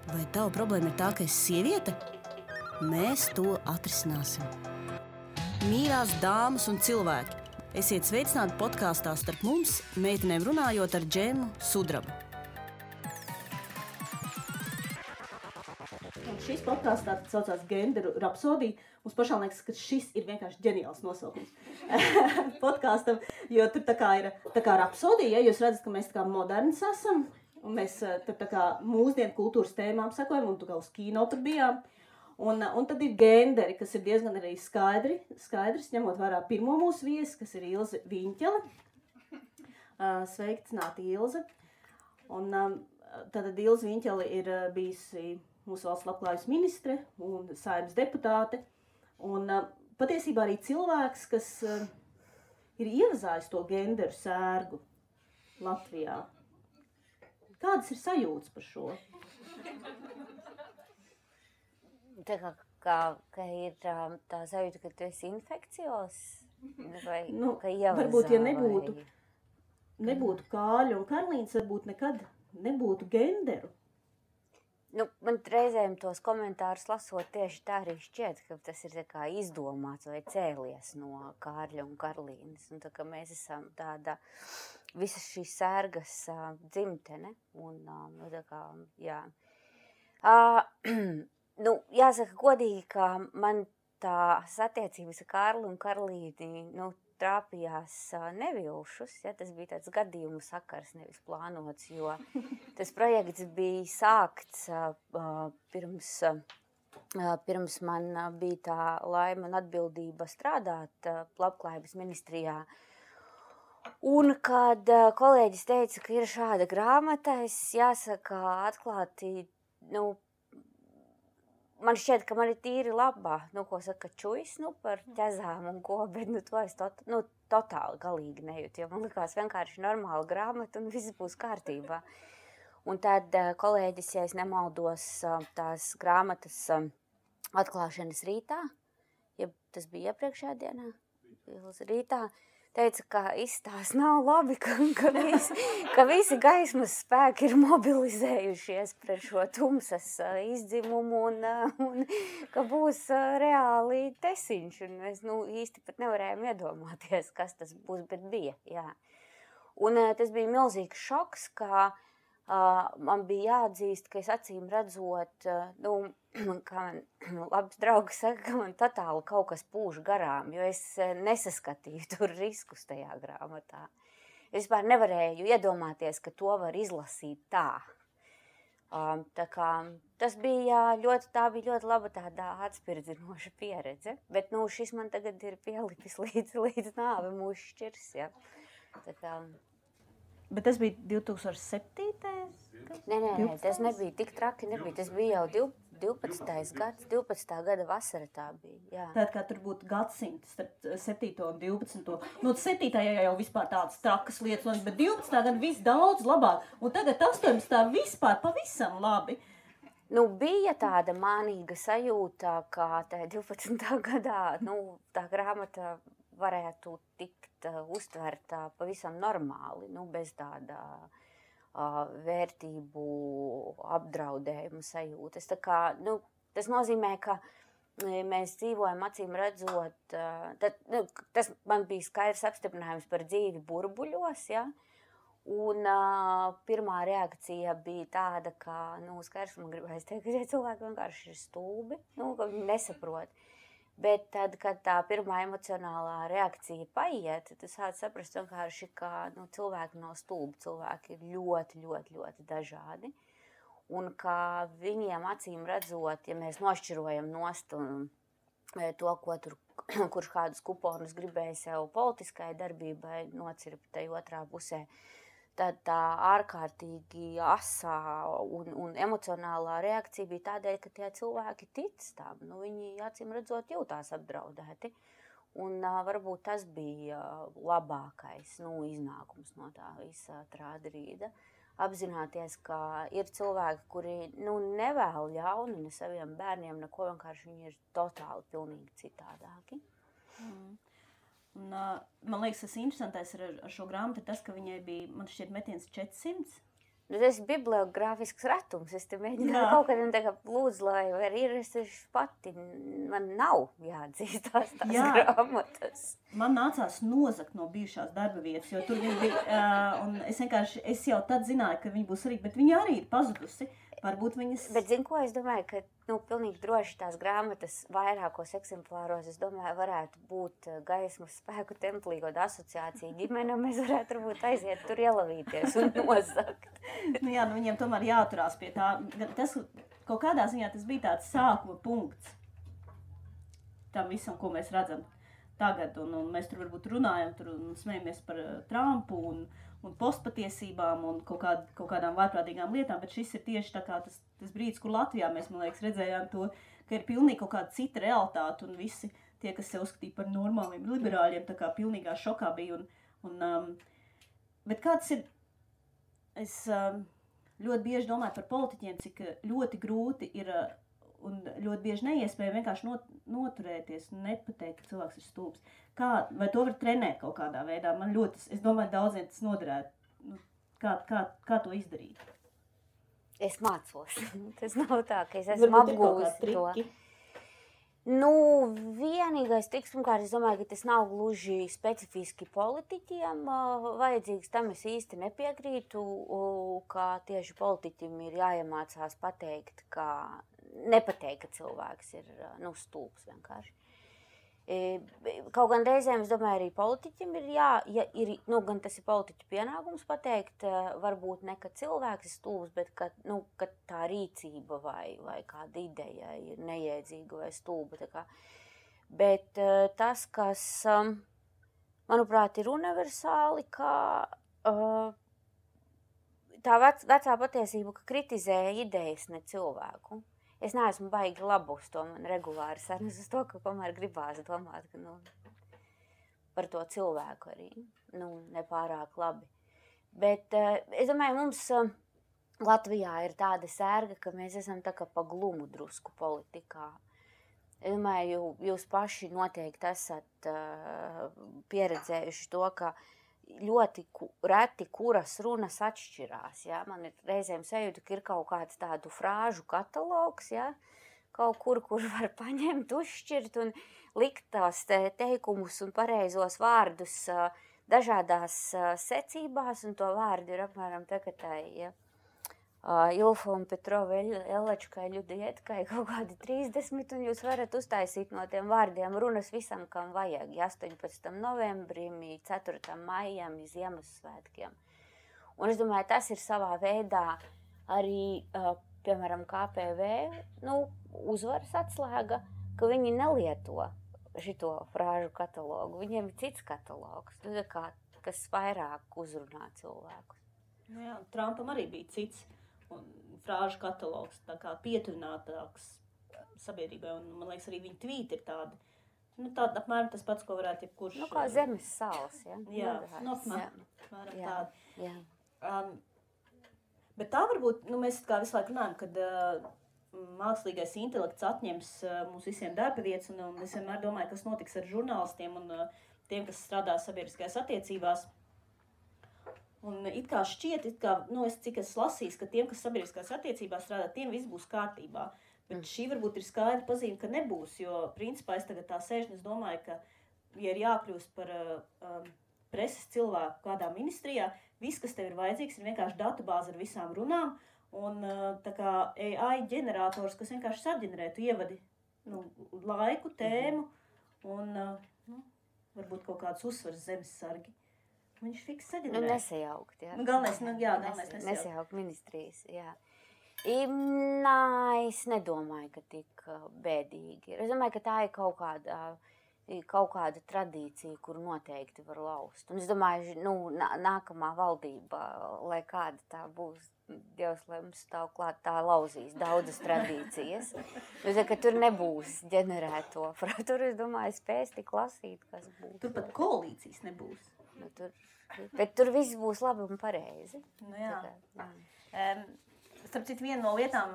Vai tava problēma ir tā, ka esi sieviete? Mēs to atrisināsim. Mīļās dāmas un cilvēki, esiet sveicināti podkāstā Starp mums, meitenēm runājot ar Džemu Sudrabu. Un šis podkāsts tā saucās Genderu rapsodija. Mums pašām liekas, ka šis ir vienkārši ģeniāls nosaukums podkāstam, jo tur tā kā rapsodija, ja jūs redzat, ka mēs tā kā moderns esam, un mēs tur tā kā mūsdienu kultūras tēmām sekojam, un tu kā uz kino tur bijām. Un tad ir genderi, kas ir diezgan arī skaidrs, ņemot vērā pirmo mūsu viesi, kas ir Ilze Viņķele. Sveicināti, Ilze. Un tad Ilze Viņķele ir bijusi mūsu valsts labklājības ministre un Saeimas deputāte. Un patiesībā arī cilvēks, kas ir ievazājis to genderu sērgu Latvijā. Kādas ir sajūtas par šo? Tā kā ir tā sajūta, ka tu esi infekcijos? Vai ka ievazā? Varbūt, ja nebūtu Kāļa un Karlīnas, varbūt nekad nebūtu genderu. Man reizēm tos komentārus lasot tieši tā arī šķiet, ka tas ir tā kā izdomāts vai cēlies no Kārļa un Karlīnas. Un tā kā mēs esam tāda visas šīs sērgas dzimtene. Un tā kā, jā. Jāsaka godīgi, ka man tās attiecības ar Kārli un Karlīti, trāpījās nevilšus, ja, tas bija tāds gadījumu sakars, nevis plānots, jo tas projekts bija sākts pirms man bija tā laima un atbildība strādāt labklājības ministrijā. Un kad kolēģis teica, ka ir šāda grāmata, es jāsaka atklāti, man šķiet, ka man ir tīri labā, ko saka čujas, par ķezām un ko, bet to es totāli galīgi nejūtu, jo man likās vienkārši normāla grāmata un viss būs kārtībā. Un tad kolēģis, ja es nemaldos, tās grāmatas atklāšanas rītā, ja tas bija iepriekšējā dienā, rītā, teica, ka izstās nav labi, ka visi gaismas spēki ir mobilizējušies pret šo tumsas izdzimumu un ka būs reāli tesiņš. Un mēs īsti pat nevarējām iedomāties, kas tas būs, bet bija. Jā. Un tas bija milzīgs šoks, ka man bija jāatzīst, ka es acīm redzot, kā man labs draugs saka, ka man totāli kaut kas pūš garām, jo es nesaskatīju tur riskus tajā grāmatā. Es vispār nevarēju iedomāties, ka to var izlasīt tā. Tā kā tas bija ļoti laba tāda atspirdzinoša pieredze, bet šis man tagad ir pielipis līdz nāve mūs šķirs, ja. Tā kā... Bet tas bija 2007. Nē, tas nebija tik traki, tas bija jau 12. gada vasara tā bija, jā. Tātad, kā tur būtu gadsimts, starp 7. un 12. 7. jau vispār tādas trakas lietas, bet 12. gada viss daudz labāk, un tagad 18. vispār pavisam labi. Bija tāda mānīga sajūta, ka tajā 12. gadā, tā grāmata varētu tikt uztverta pavisam normāli, bez tāda vērtību apdraudējuma sajūtas. Tā kā, tas nozīmē, ka mēs dzīvojam acīm redzot, tas man bija skaidrs apstiprinājums par dzīvi burbuļos, ja? Un pirmā reakcija bija tāda, ka, skaidrs man gribēs teikt, ka tie cilvēki vienkārši ir stulbi, ka viņi nesaprot. Bet tad, kad tā pirmā emocionālā reakcija paiet, tu sāc saprast vienkārši, ka cilvēki nav stulbi, cilvēki ir ļoti dažādi. Un ka viņiem acīm redzot, ja mēs nošķirojam nost to, kurš kādus kuponus gribēja sev politiskai darbībai nocirpt tai otrā pusē, tad tā ārkārtīgi asā un emocionālā reakcija bija tādēļ, ka tie cilvēki tic tam. Viņi acīm redzot jūtās apdraudēti. Un varbūt tas bija labākais iznākums no tā visa trādrīda. Apzināties, ka ir cilvēki, kuri nevēl ļaunu ne saviem bērniem, neko vienkārši viņi ir totāli pilnīgi citādāki. Un, man liekas, tas interesantais ar šo grāmatu ir tas, ka viņai bija, man šķiet, metiens 400 Tas ir bibliogrāfisks ratums. Es te mēģināju kaut kādiem lūdzu, lai var ir, es pati, man nav jāatzīstās tās grāmatas. Man nācās nozakt no bijušās darba vietas, jo tur viņi bija, un es jau tad zināju, ka viņi būs arī, bet viņi arī ir pazudusi. Varbūt viņas... Bet zinu, ko es domāju, ka, pilnīgi droši tās grāmatas vairākos eksemplāros, es domāju, varētu būt Gaismas spēku templī, kaut asociācija ģimene, mēs varētu varbūt aiziet tur ielavīties un nozakt. Viņiem tomēr jāturās pie tā. Tas, kaut kādā ziņā tas bija tāds sākuma punkts tam visam, ko mēs redzam tagad, un mēs tur varbūt runājam un smejamies par Trumpu un postpatiesībām un kaut kādām vārprātīgām lietām, bet šis ir tieši tā kā tas brīdis, kur Latvijā mēs, man liekas, redzējām to, ka ir pilnīgi kaut kāda cita realitāte un visi tie, kas sev uzskatīja par normāliem liberāļiem, tā kā pilnīgā šokā bija. Bet kāds ir, es ļoti bieži domāju par politiķiem, cik ļoti grūti ir un ļoti bieži neiespēja vienkārši noturēties un nepateikt, ka cilvēks ir stulbs. Vai to var trenēt kaut kādā veidā? Es domāju, daudziem tas noderētu. Kā to izdarīt? Es mācos. Tas nav tā, ka es esmu apgūst to. Vienīgais triks, pirmkārt, es domāju, ka tas nav gluži specifiski politiķiem vajadzīgs. Tam es īsti nepiekrītu, ka tieši politiķim ir jāiemācās nepateikt, ka cilvēks ir stulbs vienkārši. Kaut gan reizēm, es domāju, arī politiķim ir gan tas ir politiķu pienākums pateikt, varbūt ne, ka cilvēks ir stulbs, bet ka tā rīcība vai kāda ideja ir nejēdzīga vai stulba. Bet tas, kas, manuprāt, ir universāli, ka tā vecā patiesība, ka kritizē idejas, ne cilvēku. Es neesmu baigi labu uz to, man regulāri sarunas uz to, ka tomēr gribās domāt, ka, par to cilvēku arī, nepārāk labi. Bet es domāju, mums Latvijā ir tāda sērga, ka mēs esam tā kā pa glumu drusku politikā. Es domāju, jūs paši noteikti esat pieredzējuši to, ka ļoti reti, kuras runas atšķirās. Ja? Man ir reizēm sajūta, ka ir kaut kāds tādu frāžu katalogs, ja? Kaut kur var paņemt, uzšķirt un likt tās teikumus un pareizos vārdus dažādās secībās, un to vārdu ir apmēram tagad ja? Ilfa un Petrova Ellečkai, Ļudietkai kaut kādi 30, un jūs varat uztaisīt no tiem vārdiem runas visam, kam vajag. 18. novembrim, 4. maijam, Ziemassvētkiem. Un es domāju, tas ir savā veidā arī, piemēram, KPV, uzvaras atslēga, ka viņi nelieto šito frāžu katalogu. Viņiem ir cits katalogs, kas vairāk uzrunā cilvēkus. Jā, Trumpam arī bija cits. Un frāžu katalogs, tā kā pietuvinātāks sabiedrībai, un man liekas arī viņa tvīti ir tādi, tāda apmēram tas pats, ko varētu jebkurš... kā zemes sāls, ja? Jā, apmēram tādi. Jā. Bet tā varbūt, mēs kā visu laiku runājam, kad mākslīgais intelekts atņems mums visiem darba vietas, un es vienmēr domāju, kas notiks ar žurnālistiem un tiem, kas strādā sabiedriskajās attiecībās. Un it kā šķiet, cik es lasīju, ka tiem, kas sabiedriskās attiecībās strādā, tiem viss būs kārtībā. Bet šī varbūt ir skaidra pazīme, ka nebūs, jo principā es tagad tā sēžu un es domāju, ka, ja ir jākļūst par preses cilvēku kādā ministrijā, viss, kas tev ir vajadzīgs, ir vienkārši datubāze ar visām runām un tā kā AI ģenerators, kas vienkārši saģenerē, tu ievadi laiku, tēmu un varbūt kaut kāds uzsvars zemessargi. Viņš fiks saģenerē. Nesajaukt, jā. Galvenais nesajaukt. Nesajaukt ministrijas, jā. Es nedomāju, ka tik bēdīgi ir. Es domāju, ka tā ir kaut kāda tradīcija, kur noteikti var laust. Un es domāju, nākamā valdība, lai kāda tā būs, Dievs, lai mums stāv klāt, tā lauzīs daudzas tradīcijas. Ka tur nebūs ģenerēto. Tur, es domāju, spēs tik lasīt, kas būs. Tur pat koalīcijas nebūs. Bet tur viss būs labi un pareizi. Jā. Starp citu, viena no lietām,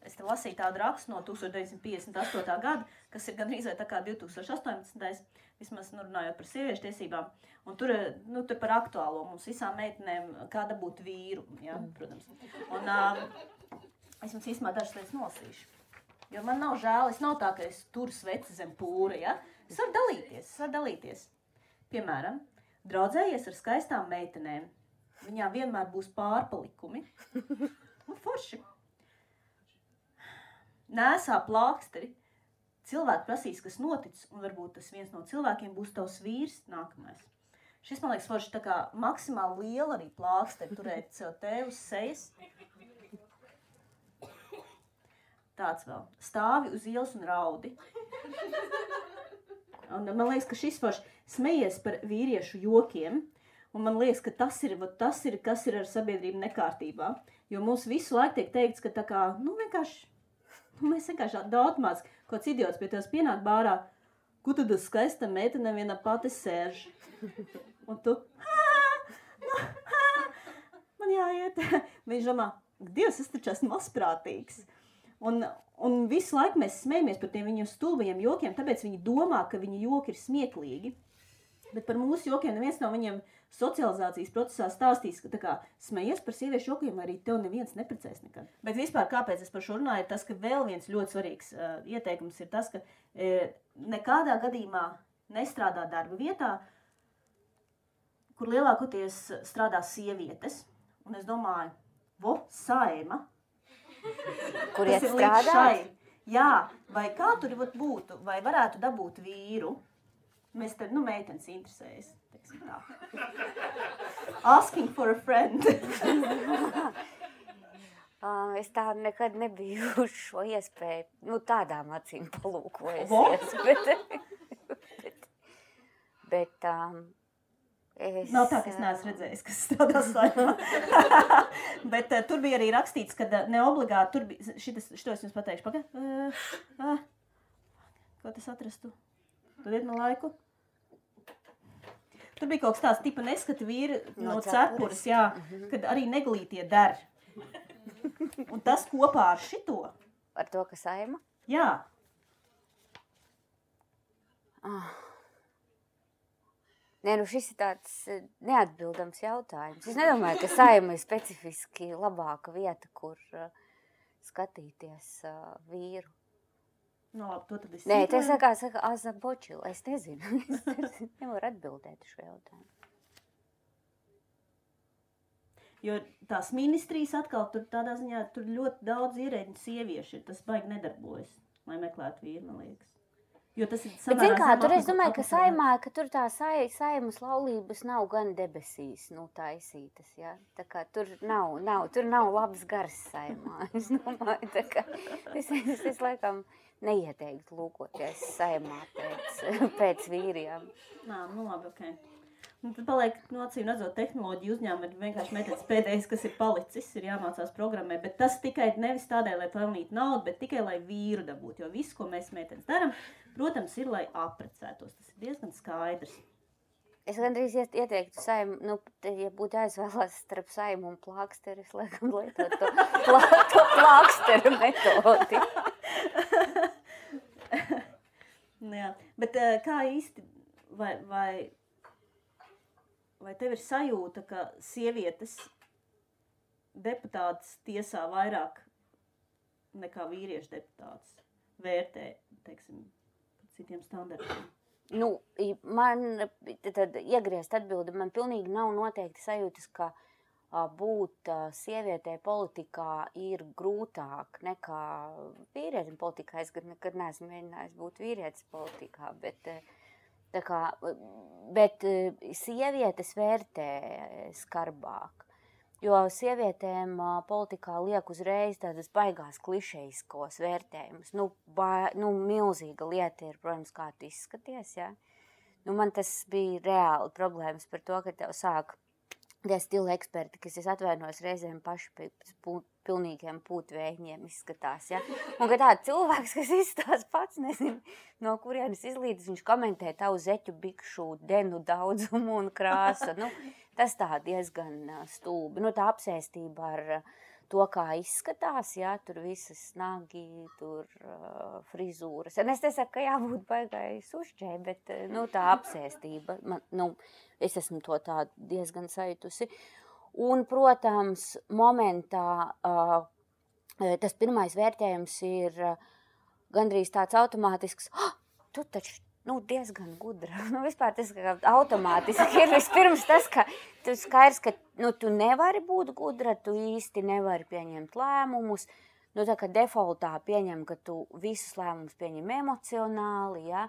es te lasīju tādu rakstu no 1958. gada, kas ir gandrīz vai tā kā 2018. Vismaz runājot par sieviešu tiesībām. Un tur par aktuālo mums visām meitenēm, kā dabūt vīru, ja, protams. Un es jums īstenībā dažas lietas nolasīšu. Jo man nav žēl, es nav tā, ka es turu sveci zem pūra, ja. Es varu dalīties. Piemēram, draudzējies ar skaistām meitenēm. Viņām vienmēr būs pārpalikumi. Un forši. Nēsā plāksteri. Cilvēki prasīs, kas noticis, un varbūt tas viens no cilvēkiem būs tavs vīrs nākamais. Šis, man liekas, forši tā kā maksimāli liela arī plāksteri turēt sev te uz sejas. Tāds vēl. Stāvi uz ielas un raudi. Un man liekas, ka šis forši smejies par vīriešu jokiem. Un man liekas, ka tas ir, kas ir ar sabiedrību nekārtībā. Jo mums visu laiku tiek teikts, ka tā kā, mēs vienkārši daudz kāds idiots pie tevis pienāk bārā, ko tad uz skaista meitene viena pati sēž. Un tu, man jāiet. Viņš domā, Dievs, es taču esmu mazprātīgs. Un visu laiku mēs smejamies par tiem viņu stulbajiem jokiem, tāpēc viņi domā, ka viņu joki ir smieklīgi. Bet par mūsu jokiem neviens no viņiem socializācijas procesā stāstīs, ka tā kā smejies par sieviešu jokiem, arī tev neviens neprecēs nekad. Bet vispār, kāpēc es par šo runāju, ir tas, ka vēl viens ļoti svarīgs ieteikums ir tas, ka nekādā gadījumā nestrādā darba vietā, kur lielākoties strādā sievietes. Un es domāju, Saeima. Kur iet strādāt? Jā, vai kā tur būtu, vai varētu dabūt vīru? Mēs te, meitenes interesējas, teiksim tā. Asking for a friend. Es tā nekad nebiju uz šo iespēju, tādām acīm palūkojusies. Bet es... Nav tā, ka es neesmu redzējis, kas strādā Saeimā. Bet tur bija arī rakstīts, ka neobligāti, tur bija, šito es jums pateikšu, ko tas atrastu? Dodiet man laiku. Tur bija kaut kas tāds tipa neskata vīri no cepures, jā, kad arī neglītie der. Un tas kopā ar šito. Ar to, ka Saeima? Jā. Nē, šis ir tāds neatbildams jautājums. Es nedomāju, ka Saeima ir specifiski labāka vieta, kur skatīties vīru. Labi, to tad es Nē, tas saka Azabočila. Es nezinu. Es nevaru atbildēt šo jautājumu. Jo tās ministrijas atkal tur tādā ziņā, tur ļoti daudz ierēģiņu sieviešu ir. Tas baigi nedarbojas, lai meklētu vīru, man liekas. Jo tas ir samērā... Bet zin kā, tur es domāju, ka Saeimā, ka tur tā Saeimas laulības nav gan debesīs, taisītas, ja? Tā kā tur nav labs gars Saeimā. Es domāju, tā kā es laikam neieteiktu lūkoties Saeimā pēc vīriem. Labi, okei. Un tad paliek, acīm redzot, tehnoloģiju uzņēmumi ir vienkārši meitenes pēdējais, kas ir palicis, ir jāmācās programmē, bet tas tikai nevis tādēļ, lai pelnītu naudu, bet tikai, lai vīru dabūtu, jo viss, ko mēs meitenes daram, protams, ir, lai apprecētos. Tas ir diezgan skaidrs. Es gandrīz ieteiktu Saeimu, ja būtu jāizvēlās starp Saeimu un plāksteri, es laikam lietot to plāksteru metodi. Jā, bet kā īsti, vai tev ir sajūta, ka sievietes deputātas tiesā vairāk nekā vīriešu deputātas vērtē, teiksim, citiem standartiem? Man tad iegriezt atbildi, man pilnīgi nav noteikti sajūtas, ka būt sievietei politikā ir grūtāk nekā vīrietim politikā. Es nekad neesmu mēģinājis būt vīrietis politikā, bet sievietes vērtē skarbāk. Jo sievietēm politikā liek uzreiz tādas baigās klišejiskos vērtējumus. Milzīga lieta ir, protams, kā tu izskaties, ja? Man tas bija reāli problēmas par to, ka tev sāk tie stila eksperti, kas es atvainojos reizēm paši pēc pilnīgiem pūtvējiem izskatās, ja? Un ka tāds cilvēks, kas izstās pats, nezinu, no kurienes izlīdz, viņš komentē tavu zeķu bikšu denu daudzumu un krāsu. Tas tā diezgan stulbi. Tā apsēstība ar to, kā izskatās, jā, tur visas nagi, tur frizūras. Un es nesaku, ka jābūt baigai sušķai, bet, tā apsēstība, es esmu to tā diezgan sajutusi. Un, protams, momentā tas pirmais vērtējums ir gandrīz tāds automātisks, tu taču, diezgan gudra. Vispār tas kā automātiski ir vispirms tas, ka tu skaidrs, ka, tu nevari būt gudra, tu īsti nevari pieņemt lēmumus, tā kā defaultā pieņem, ka tu visus lēmumus pieņem emocionāli, ja,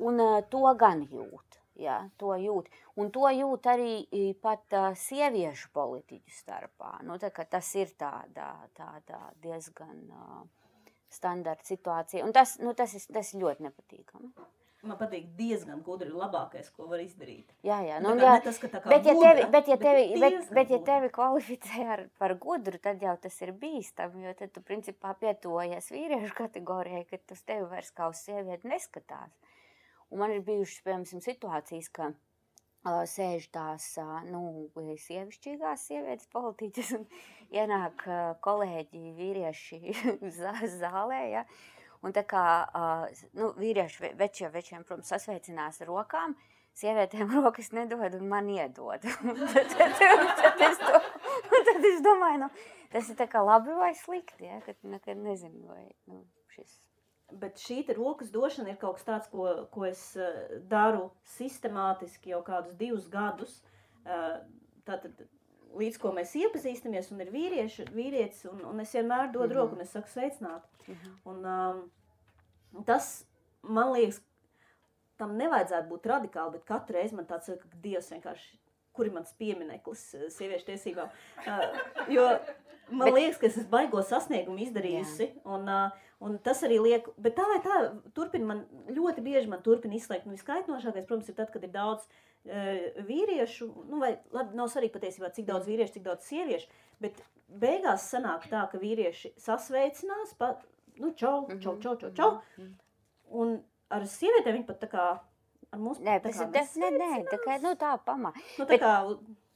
un to gan jūt. Jā, to jūt. Un to jūt arī pat sieviešu politiķu starpā. Tā kā tas ir tāda diezgan standarta situācija. Un tas ir ļoti nepatīkami. Man patīk diezgan gudri labākais, ko var izdarīt. Jā. Tas, bet ja tevi kvalificē par gudru, tad jau tas ir bīstami, jo tad tu principā pietuvojies vīriešu kategorijai, ka tu uz tevi vairs kā uz sievieti neskatās. Un man ir bijušas, piemēram, situācijas, ka sēž tās, sievišķīgās sievietes politiķas un ienāk kolēģi vīrieši zālē, ja. Un tā kā, vīrieši večiem, protams, sasveicinās ar rokām, sievietēm rokas nedod un man iedod. Tad es domāju, tas ir tā kā labi vai slikti, ja, kad nekad nezinu, vai šis. Bet šī rokas došana ir kaut kas tāds, ko es daru sistemātiski jau kādus 2 gadus. Tātad, līdz ko mēs iepazīstamies, un ir vīrietis, un es vienmēr dodu roku, un es saku sveicināt. Un tas, man liekas, tam nevajadzētu būt radikāli, bet katru reizi man tāds, ka Dievs vienkārši, kur ir mans piemineklis sieviešu tiesībām. Jo man liekas, ka es esmu baigo sasniegumu izdarījusi, un tas arī liek, bet tā vai tā, ļoti bieži man turpina izslēgt. Viskaitnošākais, protams, ir tad, kad ir daudz vīriešu, vai labi, nav svarīgi patiesībā, cik daudz vīriešu, cik daudz sieviešu, bet beigās sanāk tā, ka vīrieši sasveicinās, čau, un ar sievietēm viņi pat tā kā, ar mums tā kā, tā pamā.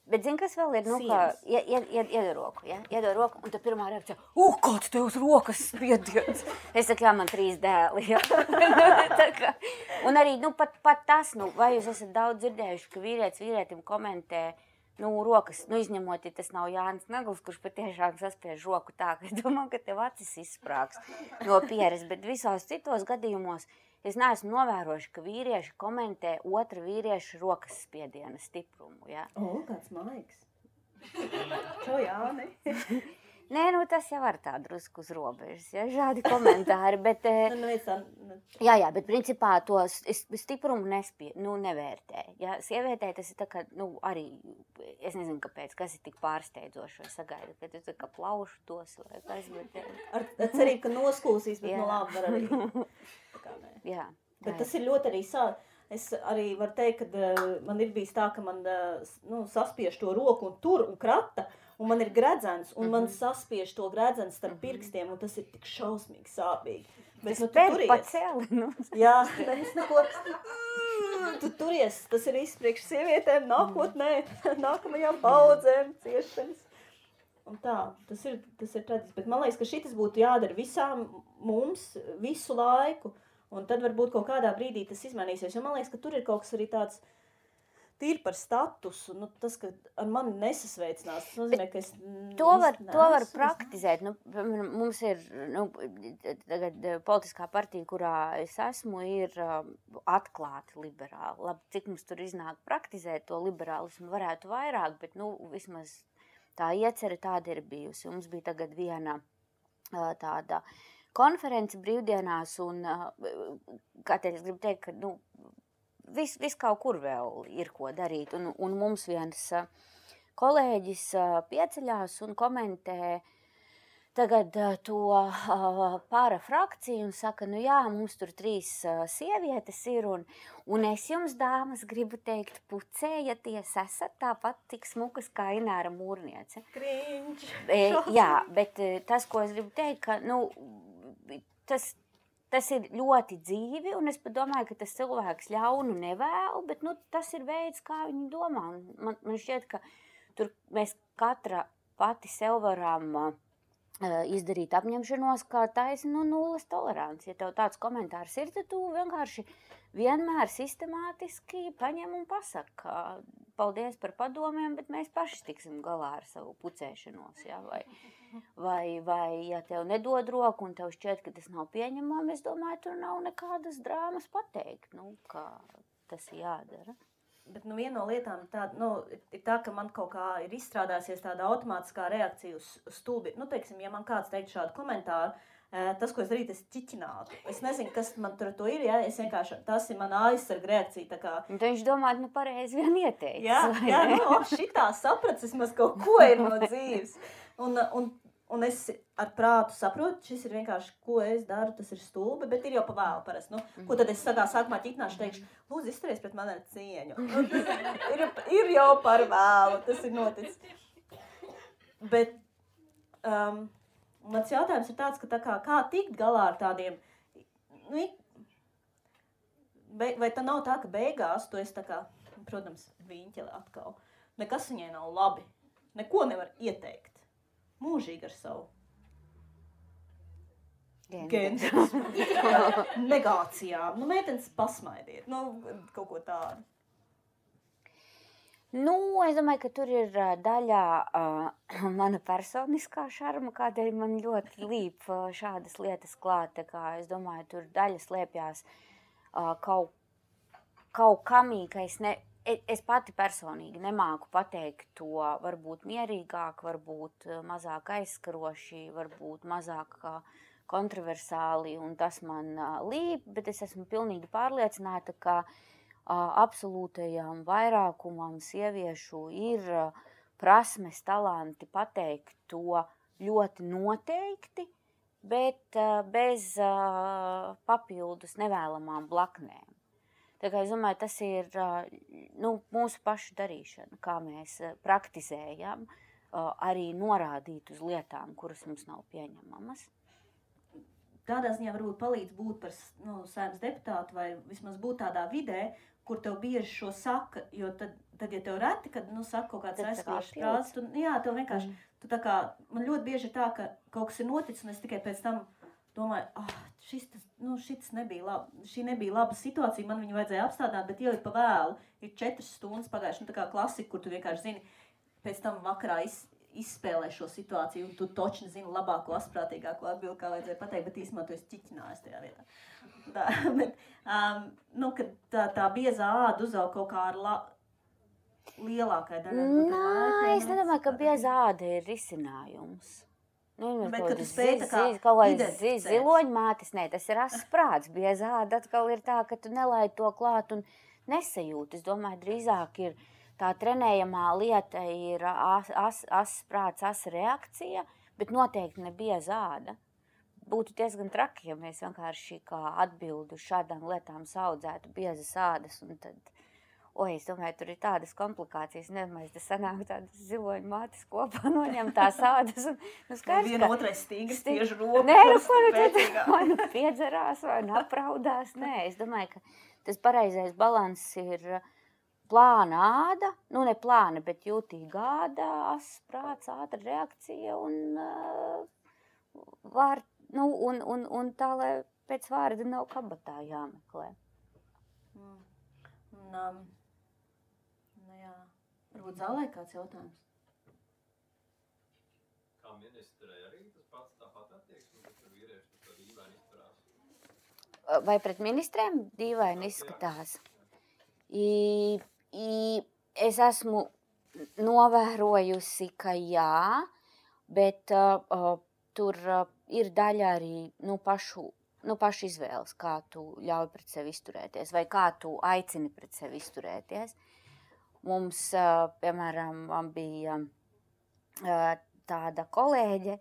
Bet zini, kas vēl ir, kā iedod roku, ja? Iedod roku, un tad pirmā reakcija, kāds tev uz rokas spiediens? Es saku, jā, man 3 dēli, ja? Un arī, pat tas, vai jūs esat daudz dzirdējuši, ka vīrietim komentē, rokas, izņemot, ja tas nav Jānis Nagls, kurš patiešām saspiež roku tā, ka es domāju, ka tev acis izsprāgs no pieres, bet visos citos gadījumos es neesmu novērojuši, ka vīrieši komentē otra vīrieša rokas spiediena stiprumu, ja? Kāds maigs. Čau, Jāni. Nē, tas jau var tā drusku uz robežas, ja, šādi komentāri, bet, jā, bet principā to stiprumu nevērtē, ja, sievietē tas ir tā kā, arī, es nezinu, kāpēc, kas ir tik pārsteidzoši, vai sagaida, ka tu tā kā plaušu tos, vai kas, bet... Ar cerību, ka noskūsīs, bet labi var arī. Tā kā nē. Jā. Bet tas ir ļoti arī es arī varu teikt, ka man ir bijis tā, ka man, saspiež to roku un tur un krata, un man ir gredzens, un man saspiež to gredzens starp pirkstiem, un tas ir tik šausmīgi sāpīgi. Bet, tu turies. Jā, es neko... Tu turies, tas ir viss priekš sievietēm, nākotnē, nākamajām paudzēm, ciešanas. Un tā, tas ir traģiski. Bet man liekas, ka šitas būtu jādara visām mums visu laiku, un tad varbūt kaut kādā brīdī tas izmainīsies. Jo man liekas, ka tur ir kaut kas arī tāds tīri par statusu, tas, ka ar mani nesasveicinās, tas nozīmē, ka es... To var praktizēt. Mums ir tagad politiskā partija, kurā es esmu, ir atklāti liberāli. Labi, cik mums tur iznāk praktizēt to liberālismu, varētu vairāk, bet vismaz tā iecerē tāda ir bijusi. Mums bija tagad viena tāda konference brīvdienās, un kā te es gribu teikt, ka Viss kaut kur vēl ir ko darīt, un mums viens kolēģis pieceļās un komentē tagad to parafrakciju un saka, jā, mums tur 3 sievietes ir, un es jums, dāmas, gribu teikt, pucējaties, esat tāpat tik smukas kā Ināra Mūrniece. Cringe! Jā, bet tas, ko es gribu teikt, ka, tas ir ļoti dzīvi, un es padomāju, ka tas cilvēks ļaunu nevēl, bet tas ir veids, kā viņi domā. Man šķiet, ka tur mēs katra pati sev varam izdarīt apņemšanos, ka taisa nulles tolerants. Ja tev tāds komentārs ir, tad tu vienkārši vienmēr sistemātiski paņem un pasaka, paldies par padomiem, bet mēs paši tiksim galā ar savu pucēšanos. Ja? Vai ja tev nedod roku un tev šķiet, ka tas nav pieņemami, es domāju, tur nav nekādas drāmas pateikt, kā tas ir jādara. Bet viena no lietām ir tā, ka man kaut kā ir izstrādājusies tāda automātiskā reakcija uz stulbi. Teiksim, ja man kāds teikt šādu komentāru, tas, ko es darītu, es ķiķinātu. Es nezinu, kas man tur to ir, ja? Es vienkārši, tas ir mana aizsarga reakcija. Tā kā... Viņš domā, pareizi vien ieteicis. Jā, šitā saprats, vismaz kaut ko ir no dzīves. Un es ar prātu saprotu, šis ir vienkārši, ko es daru, tas ir stulbi, bet ir jau pa vēlu parasti. Ko tad es sākumā ķitināšu, teikšu, lūdzu, izturies pret mani ar cieņu. Ir jau par vēlu, tas ir noticis. Bet mans jautājums ir tāds, ka kā tikt galā ar tādiem, vai tā nav tā, ka beigās tu esi tā kā, protams, viņķeli atkal. Nekas viņai nav labi, neko nevar ieteikt. Mūžīgi ar savu genderismu, negācijām. Meitenes pasmaidiet, kaut ko tādu. Es domāju, ka tur ir daļā mana personiskā šarma, kādēļ man ļoti līp šādas lietas klāt. Es domāju, tur daļa slēpjās kaut kamī, ka es pati personīgi nemāku pateikt to varbūt mierīgāk, varbūt mazāk aizskaroši, varbūt mazāk kontroversāli, un tas man līp, bet es esmu pilnīgi pārliecināta, ka absolūtajam vairākumam sieviešu ir prasmes, talanti pateikt to ļoti noteikti, bet bez papildus nevēlamām blaknēm. Tā kā es domāju, tas ir mūsu pašu darīšana, kā mēs praktizējam, arī norādīt uz lietām, kuras mums nav pieņemamas. Tādā ziņā varbūt palīdz būt par Saeimas deputātu vai vismaz būt tādā vidē, kur tev bieži šo saka, jo tad ja tev reti, kad saka kaut kāds aizskalošs frāzes, tev vienkārši, tu tā kā, man ļoti bieži ir tā, ka kaut kas ir noticis un es tikai pēc tam domāju, šis nebija labi, šī nebija laba situācija, man viņu vajadzēja apstādāt, bet jau ir pa vēlu, ir 4 stundas pagājuši, tā kā klasika, kur tu vienkārši zini, pēc tam vakarā izspēlē šo situāciju, un tu točni zini labāko, asprātīgāko atbildi, kā vajadzēja pateikt, bet īstenībā tu esi ķiķinājis tajā vietā. Kad tā biezā āda uzaug kaut kā ar lielākai daļai. Es nedomāju, ka biezā āda ir risinājums. Bet, kad tu spēj tā kā identificēt. Ziloņmātes, tas ir asprāts. Biezā āda atkal ir tā, ka tu nelaid to klāt un nesajūti. Es domāju, drīzāk ir tā trenējamā lieta ir asprāts, reakcija, bet noteikti ne biezā āda. Būtu diezgan traki, ja mēs vienkārši kā atbildu šādām lietām saudzētu biezas ādas un tad... es domāju, tur ir tādas komplikācijas, nedomāju, tas sanāk tādas ziloņmātes kopā noņem tās ādas un skaidrs, viena otrai stīgas tieši roku. Vai piedzerās, vai apraudās. Es domāju, ka tas pareizais balans ir plāna āda, ne plāna, bet jūtīga āda, asprāts, ātra reakcija un tā, lai pēc vārda nav kabatā jāmeklē. Varbūt zālē kāds jautājums? Kā ministrei arī tas pats tāpat attieksme, bet tur vīrieši tur dīvaini izturās? Vai pret ministriem dīvaini izskatās? Es esmu novērojusi, ka jā, bet tur ir daļa arī pašu izvēles, kā tu ļauj pret sevi izturēties vai kā tu aicini pret sevi izturēties. Mums, piemēram, bija tāda kolēģe,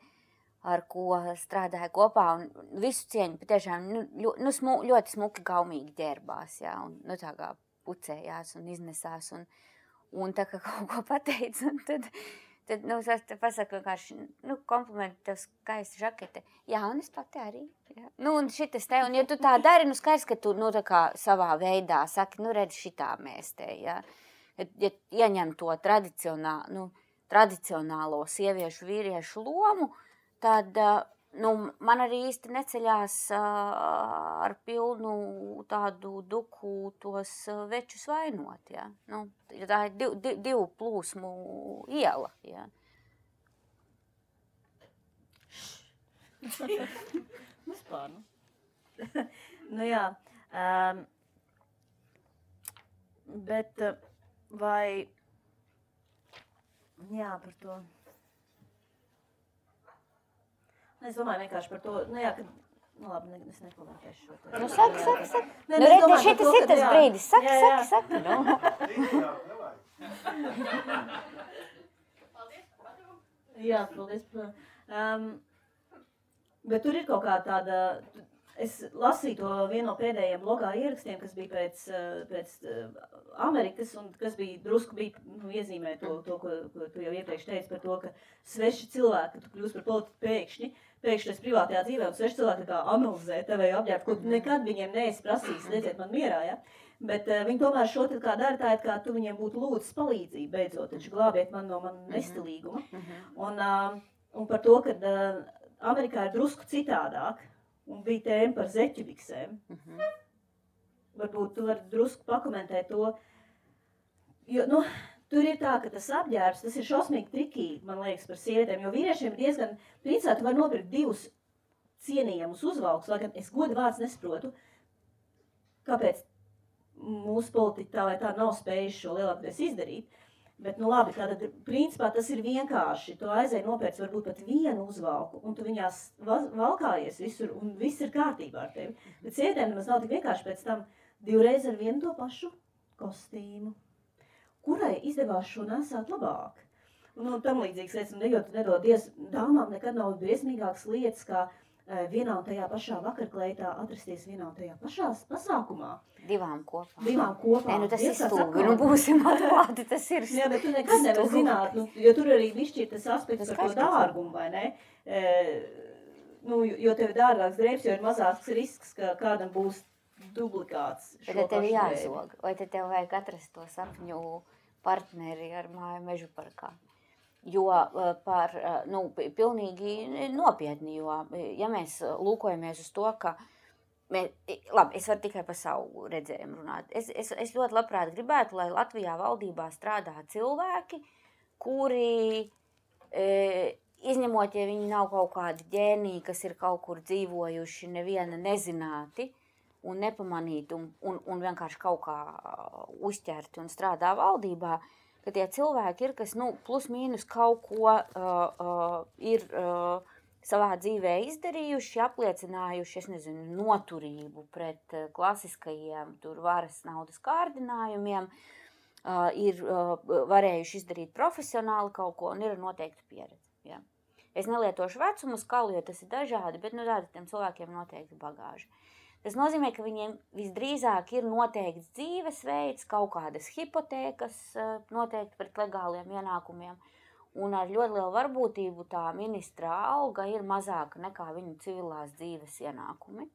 ar ko strādāja kopā, un visu cieņu patiešām ļoti smuki gaumīgi ģērbās, jā, un tā kā pucējās un iznesās, un tā kā kaut ko pateica, un tad es pasaku vienkārši, komplimentu tev skaista žakete. Jā, un es pati arī. Jā. Un šitas te, un ja tu tā dari, skaidrs, ka tu, tā kā savā veidā saki, redz šitā mēs te, jā. Ja ieņem to tradicionālo sieviešu vīriešu lomu, tad man arī īsti neceļās ar pilnu tādu duku tos večus vainot. Ja? Tā ir divu plūsmu iela. Ja? Vispār, jā. Bet vai... Jā, par to... Es domāju vienkārši par to, ka... labi, es nekomentēšu šo te. Saki. Šitas ir tas brīdis. Saki. Jā, paldies. Bet tur ir kaut kā tāda... Es lasīju to vienu no pēdējiem blogā ierakstiem, kas bija pēc Amerikas, un kas drusku iezīmē to, ko tu jau iepriekš teici par to, ka sveši cilvēki, ka tu kļūst par politiku pēkšņi tas privātajā dzīvē, un sveši cilvēki kā analizē tevēju apģērbu, ko tu nekad viņiem neesi prasījis, lieciet man mierā, ja? Bet viņi tomēr šo tad kā dara tā, kā tu viņiem būtu lūdzis palīdzību beidzot, taču glābiet man no man nestilīguma. Un par to, ka Amerikā ir drusku citādāk, un bija tēma par zeķubiksēm. Varbūt tu vari drusku pakomentēt to, jo, tur ir tā, ka tas apģērbs, tas ir šausmīgi trikīgi, man liekas, par sievietēm, jo vīriešiem ir diezgan, principā tu vari nopirkt 2 cienījamus uzvalkus, lai gan es godu vārds nesaprotu, kāpēc mūsu politiķi tā vai tā nav spējuši šo lielākoties izdarīt. Bet, labi, tātad, principā tas ir vienkārši. Tu aizēji nopērc varbūt pat vienu uzvalku, un tu viņās valkājies visur, un viss ir kārtībā ar tevi. Bet sievietēm nemaz nav tik vienkārši pēc tam 2 reizes ar vienu to pašu kostīmu, kurai izdevās šo nesāt labāk. Un tam līdzīgas lietas, jo tu nedodies, dāmām nekad nav briesmīgākas lietas, kā vienā un tajā pašā vakarkleitā atrasties vienā un tajā pašā pasākumā. 2 kopā. Tas ir stulbi, būsim atklāti, tas ir stulbi. Jā, bet tu nekad nevar zināt, jo tur arī višķir tas aspekts par to dārgumu, vai ne? Jo tev ir dārgāks drēbs, jo ir mazāks risks, ka kādam būs duplikāts. Bet tev jāzog, vai tev vajag atrast to sapņu partneri ar māju mežu parkā. Jo pilnīgi nopietni, jo, ja mēs lūkojamies uz to, ka labi, es varu tikai par savu redzējumu runāt. Es ļoti labprāt gribētu, lai Latvijā valdībā strādā cilvēki, kuri, izņemot, ja viņi nav kaut kādi ģēniji, kas ir kaut kur dzīvojuši neviena nezināti un nepamanīti un vienkārši kaut kā uzķerti un strādā valdībā, ka tie cilvēki ir, kas plus mīnus kaut ko ir savā dzīvē izdarījuši, apliecinājuši, noturību pret klasiskajiem varas naudas kārdinājumiem, ir varējuši izdarīt profesionāli kaut ko un ir noteikti pieredze. Ja. Es nelietošu vecumu skalu, jo tas ir dažādi, bet tādi tiem cilvēkiem noteikti bagāži. Tas nozīmē, ka viņiem visdrīzāk ir noteikts dzīvesveids, kaut kādas hipotēkas noteikti pret legāliem ienākumiem, un ar ļoti lielu varbūtību tā ministra alga ir mazāka nekā viņu civilās dzīves ienākumi.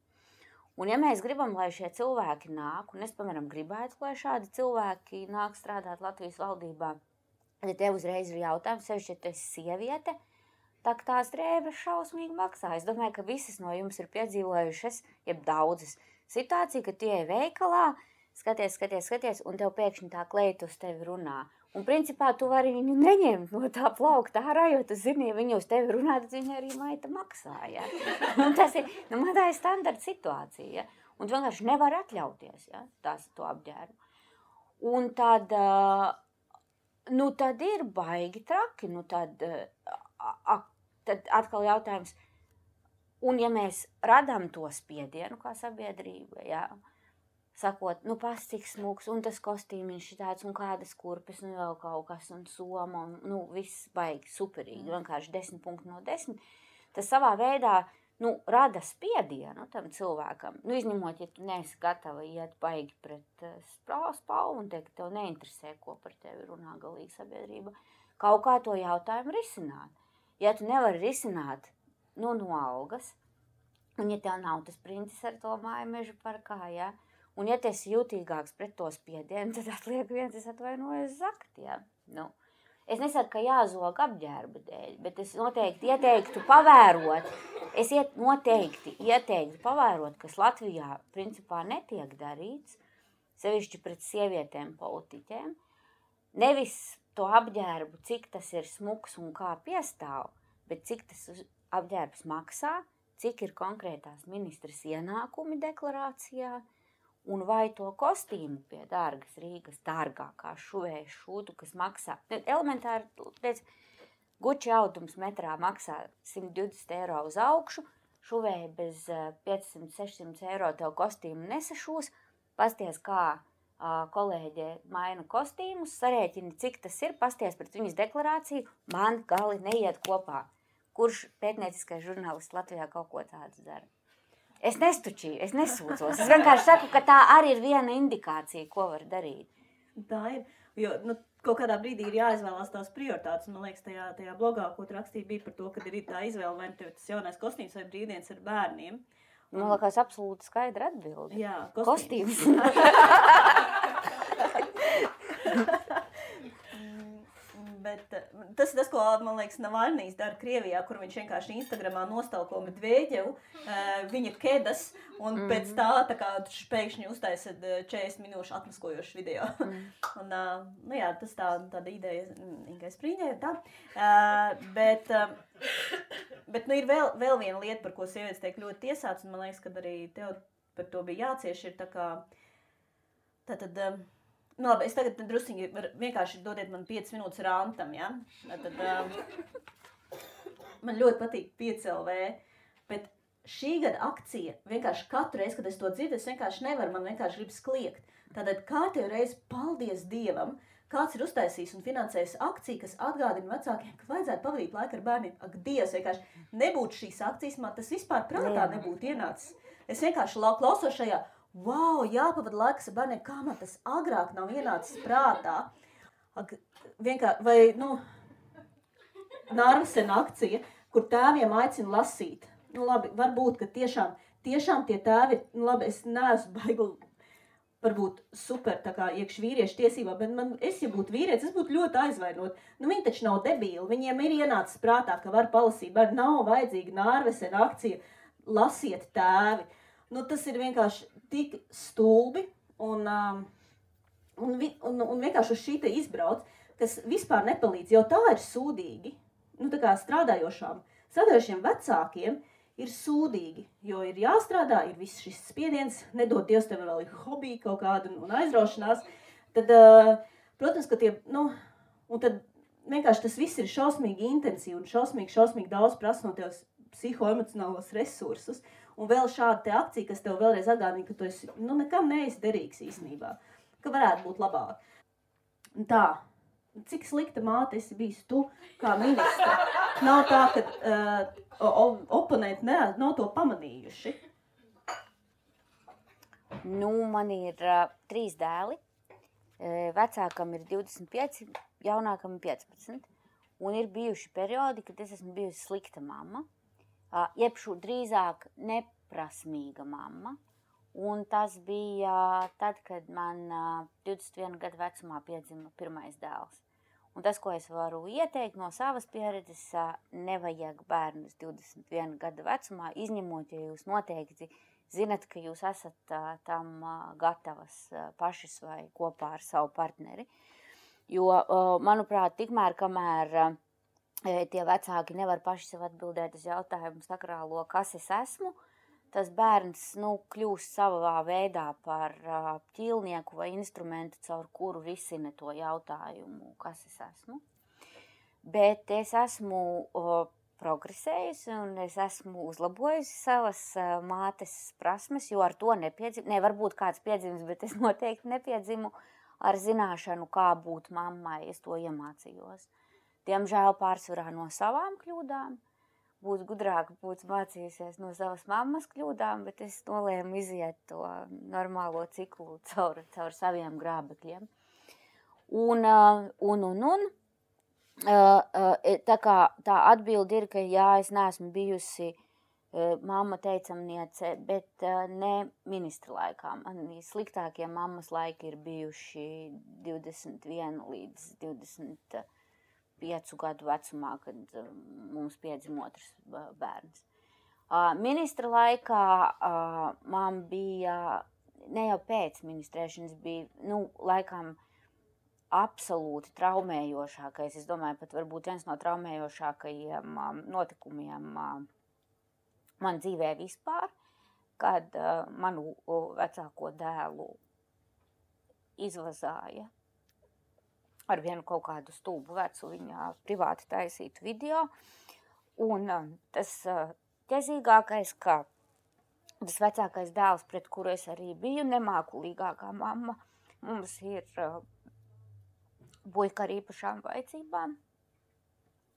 Un ja mēs gribam, lai šie cilvēki nāk, un es, piemēram, gribētu, lai šādi cilvēki nāk strādāt Latvijas valdībā, tad tev uzreiz ir jautājums, sevišķi, ja tu esi sieviete, tā tās drēbes šausmīgi maksā. Es domāju, ka visas no jums ir piedzīvojušas, jeb daudzas situāciju, ka tu ej veikalā, skaties, un tev pēkšņi tā kleita uz tevi runā. Un principā tu vari viņu neņemt no tā plaukta ārā, jo tu zini, ja viņa uz tevi runā, tad viņa arī maita maksā. Ja? Un tas ir, tā ir standarta situācija. Ja? Un tu vienkārši nevar atļauties, ja? To apģērbu. Un tad, tad ir baigi traki, tad atkal jautājums, un ja mēs radām to spiedienu kā sabiedrība, ja, sakot, pas cik smūgs, un tas kostīmiņš tāds, un kādas kurpes, vēl kaut kas, un soma, un viss baigi superīgi, vienkārši 10 punkti no 10, tas savā veidā, rada spiedienu tam cilvēkam, izņemot, ja tu neesi gatava iet baigi pret spalvu, un teikt, ka tev neinteresē, ko par tevi runā galīgi sabiedrība, kaut kā to jautājumu risināt. Ja tu nevari risināt no algas, un ja tev nav tas princis ar to māju mežu parkā, ja, un ja tu esi jūtīgāks pret to spiedienu, tad atliek viens, es atvainojos zakt, ja. Es nesaku, ka jāzog apģērba dēļ, bet es noteikti ieteiktu pavērot. Noteikti ieteiktu pavērot, kas Latvijā principā netiek darīts, sevišķi pret sievietēm politiķēm. Nevis to apģērbu, cik tas ir smuks un kā piestāv, bet cik tas apģērbs maksā, cik ir konkrētās ministras ienākumi deklarācijā, un vai to kostīmu pie dārgas Rīgas, dārgākā šuvēja šūtu, kas maksā. Elementāri, Gucci audums metrā maksā 120 eiro uz augšu, šuvēja bez 500-600 eiro tev kostīmu nesašūs, pasties kā kolēģe maina kostīmus, sarēķini, cik tas ir, pasties pret viņas deklarāciju, man gali neiet kopā. Kurš pētnieciskais žurnālists Latvijā kaut ko tādu dara? Es nestučīju, es nesūdzos. Es vienkārši saku, ka tā arī ir viena indikācija, ko var darīt. Tā ir, jo kaut kādā brīdī ir jāizvēlās tās prioritātes. Man liekas, tajā blogā, ko tu rakstīji, bija par to, ka ir tā izvēle, vai tev tas jaunais kostīms vai brīvdienas ar bērniem. Man liekas, absolūti skaidra atbilde. Jā, kostīms. Bet tas ir tas, ko, man liekas, Navalnijs dara Krievijā, kur viņš vienkārši Instagramā nostalko Medveģevu, viņa kedas, un pēc tā kā pēkšņi uztaisa 40 minūšu atmaskojošu video. Un, jā, tas tāda ideja, Ingai Sprīņai, tā. Bet ir vēl viena lieta, par ko sievietes tiek ļoti tiesāts, un man liekas, ka arī tev par to bija jācieš, ir tā kā, labi, es tagad drusciņi vienkārši dodiet man 5 minūtes rantam, ja? Man ļoti patīk 5LV, bet šī gada akcija, vienkārši katru reizi, kad es to dzirdu, es vienkārši nevaru, man vienkārši grib kliegt. Tātad kārtējo reizi, paldies Dievam, kāds ir uztaisījis un finansējis akciju, kas atgādina vecākiem, ka vajadzētu pavadīt laiku ar bērniem. Ak, Dievs, vienkārši nebūtu šīs akcijas, man tas vispār prātā nebūtu ienācis. Es vienkārši klausos šajā, wow, jāpavada laiks ar bērniem, kā man tas agrāk nav ienācis prātā. Vai, Nārvasena akcija, kur tēviem aicina lasīt. Labi, varbūt, ka tiešām tie tēvi, labi, es neesmu baigi, varbūt super tā kā iekš vīriešu tiesībā, bet ja būtu vīrietis, es būtu ļoti aizvainot. Viņi taču nav debīli, viņiem ir ienācis prātā, ka var palasīt, bet nav vajadzīga Nārvasena akcija, lasiet tēvi. Tas ir vienkārši tik stulbi un vienkārši uz šī te izbrauc, kas vispār nepalīdz, jo tā ir sūdīgi. Tā kā strādājošiem vecākiem ir sūdīgi, jo ir jāstrādā, ir viss šis spiediens, nedod Dievs tev vēl ir hobija kaut kāda un aizraušanās. Tad, protams, ka un tad vienkārši tas viss ir šausmīgi intensīvi un šausmīgi daudz prasa no tev psihoemocionālos resursus. Un vēl šāda te akcija, kas tev vēlreiz atgādina, ka tu esi, nekam neesi derīgs īstenībā, ka varētu būt labāk. Tā, cik slikta māte esi bijis tu kā ministra? Nav tā, ka oponenti nav to pamanījuši. Man ir 3 dēli, vecākam ir 25, jaunākam ir 15, un ir bijuši periodi, kad es esmu bijusi slikta mamma. Jebšu drīzāk neprasmīga mamma, un tas bija tad, kad man 21 gadu vecumā piedzima pirmais dēls. Un tas, ko es varu ieteikt no savas pieredzes, nevajag bērnus 21 gadu vecumā, izņemot, ja jūs noteikti zinat, ka jūs esat tam gatavas pašas vai kopā ar savu partneri. Jo, manuprāt, tikmēr, kamēr tie vecāki nevar paši sev atbildēt uz jautājumu sakrālo, kas es esmu, tas bērns kļūst savā veidā par ķīlnieku vai instrumentu, caur kuru risina to jautājumu, kas es esmu. Bet es esmu progresējusi un es esmu uzlabojusi savas mātes prasmes, jo ar to varbūt kāds piedzimis, bet es noteikti nepiedzimu ar zināšanu, kā būt mammai, es to iemācījos. Diemžēl pārsvarā no savām kļūdām, būtu gudrāk, būtu mācījusies no savas mammas kļūdām, bet es nolēmu iziet to normālo ciklu caur saviem grābekļiem. Tā atbilde ir, ka jā, es neesmu bijusi mamma teicamniece, bet ne ministra laikā. Man sliktākie mammas laiki ir bijuši 21 līdz 5 gadu vecumā, kad mums piedzima otrs bērns. Ministra laikā man bija, ne jau pēc ministrēšanas, bija, laikam absolūti traumējošākais, es domāju, pat varbūt viens no traumējošākajiem notikumiem man dzīvē vispār, kad manu vecāko dēlu izvazāja ar vienu kaut kādu stulbu vecu viņa privāti taisītu video. Un tas ķezīgākais, ka tas vecākais dēls, pret kuru es arī biju, nemākulīgākā mamma, mums ir puika ar īpašām vajadzībām,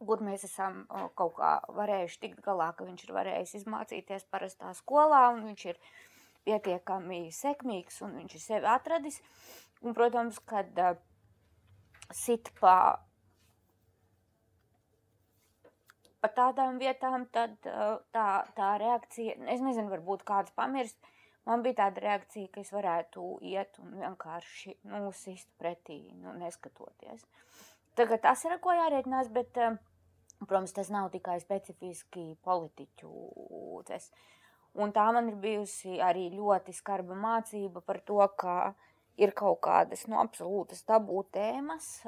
kur mēs esam kaut kā varējuši tikt galā, ka viņš ir varējis izmācīties parastā skolā, un viņš ir pietiekami sekmīgs, un viņš ir sevi atradis. Un, protams, kad sit pa tādām vietām, tad tā reakcija, es nezinu, varbūt kāds pamirst, man bija tāda reakcija, ka es varētu iet un vienkārši sist pretī, neskatoties. Tagad tas ir, ar ko jārēķinās, bet, protams, tas nav tikai specifiski politiķu tas. Un tā man ir bijusi arī ļoti skarba mācība par to, ka ir kaut kādas absolūtas tabū tēmas,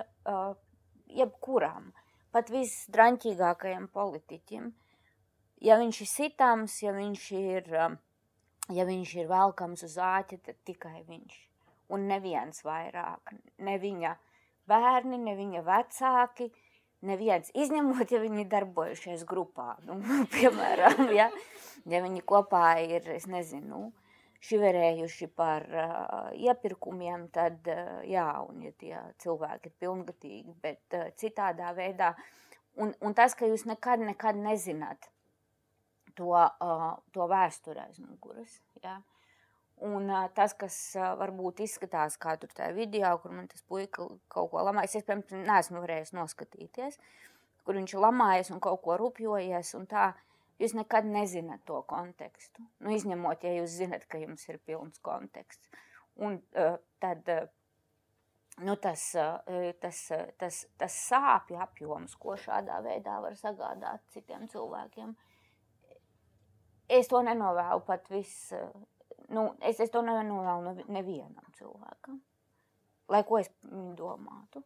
jebkuram, pat visdraņķīgākajam politiķim. Ja viņš ir sitams, ja viņš ir velkams uz āķa, tad tikai viņš. Un neviens vairāk, ne viņa bērni, ne viņa vecāki, neviens, izņemot, ja viņi darbojušies grupā. Piemēram, ja viņi kopā ir, es nezinu, šiverējuši par iepirkumiem, tad jā, un ja tie cilvēki ir pilngatīgi, bet citādā veidā. Un tas, ka jūs nekad nezināt to vēsturi aiz muguras, jā. Un tas, kas varbūt izskatās kā tur tajā video, kur man tas puika kaut ko lamājas, es, piemēram, neesmu varējis noskatīties, kur viņš ir lamājies un kaut ko rupjojies un tā, jūs nekad nezināt to kontekstu. Izņemot, ja jūs zinat, ka jums ir pilns konteksts. Un tad tas sāpju apjoms, ko šādā veidā var sagādāt citiem cilvēkiem. Es to nenovēlu pat es to nenovēlu nevienam cilvēkam. Lai ko es domātu.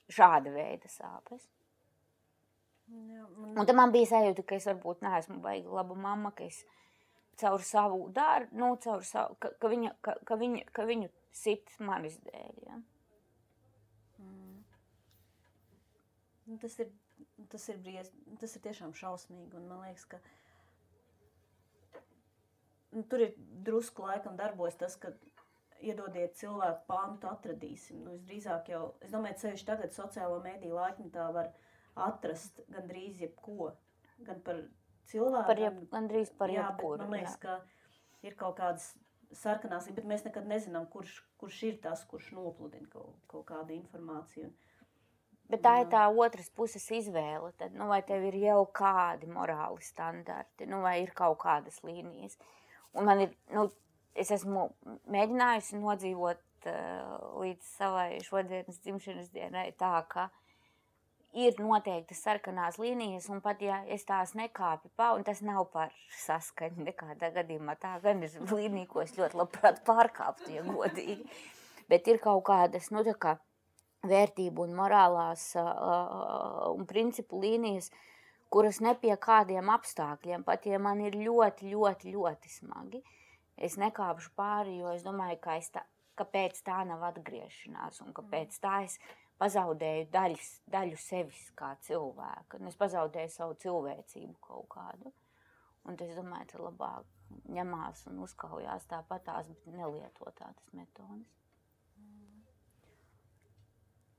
Šāda veida sāpes. Jā, un tad man bija sajūta, ka es varbūt neesmu baigi laba mamma, ka es caur savu darbu, ka viņu sit manis dēļ. Ja? Tas ir tiešām šausmīgi, un man liekas, ka tur ir drusku laikam darbojas tas, ka iedodiet cilvēku pantu atradīsim. Visdrīzāk jau, es domāju, ceļš tagad sociālo mediju laikmetā var atrast gandrīz jebko, gan par cilvēku, gandrīz par jebkuru. Man liekas, ka ir kaut kādas sarkanās, bet mēs nekad nezinām, kurš ir tas, kurš nopludina kaut kādu informāciju. Bet tā ir tā otras puses izvēle, tad, vai tev ir jau kādi morāli standarti, vai ir kaut kādas līnijas. Un man ir, es esmu mēģinājusi nodzīvot līdz savai šodienas dzimšanas dienai tā, ka ir noteikti sarkanās līnijas, un pat ja es tās nekāpju un tas nav par saskaņu nekādā gadījumā, tā gan ir līnija, ko es ļoti labprāt pārkāptu, ja godīgi. Bet ir kaut kādas, tā kā vērtību un morālās un principu līnijas, kuras ne pie kādiem apstākļiem, pat ja man ir ļoti, ļoti, ļoti smagi, es nekāpšu pāri, jo es domāju, ka pēc tā nav atgriešanās, un ka pēc tā es pazaudēju daļu sevis kā cilvēka, un es pazaudēju savu cilvēcību kaut kādu. Un es domāju, ka labāk ņemās un uzkaujās tāpatās, bet nelieto tādas metodas.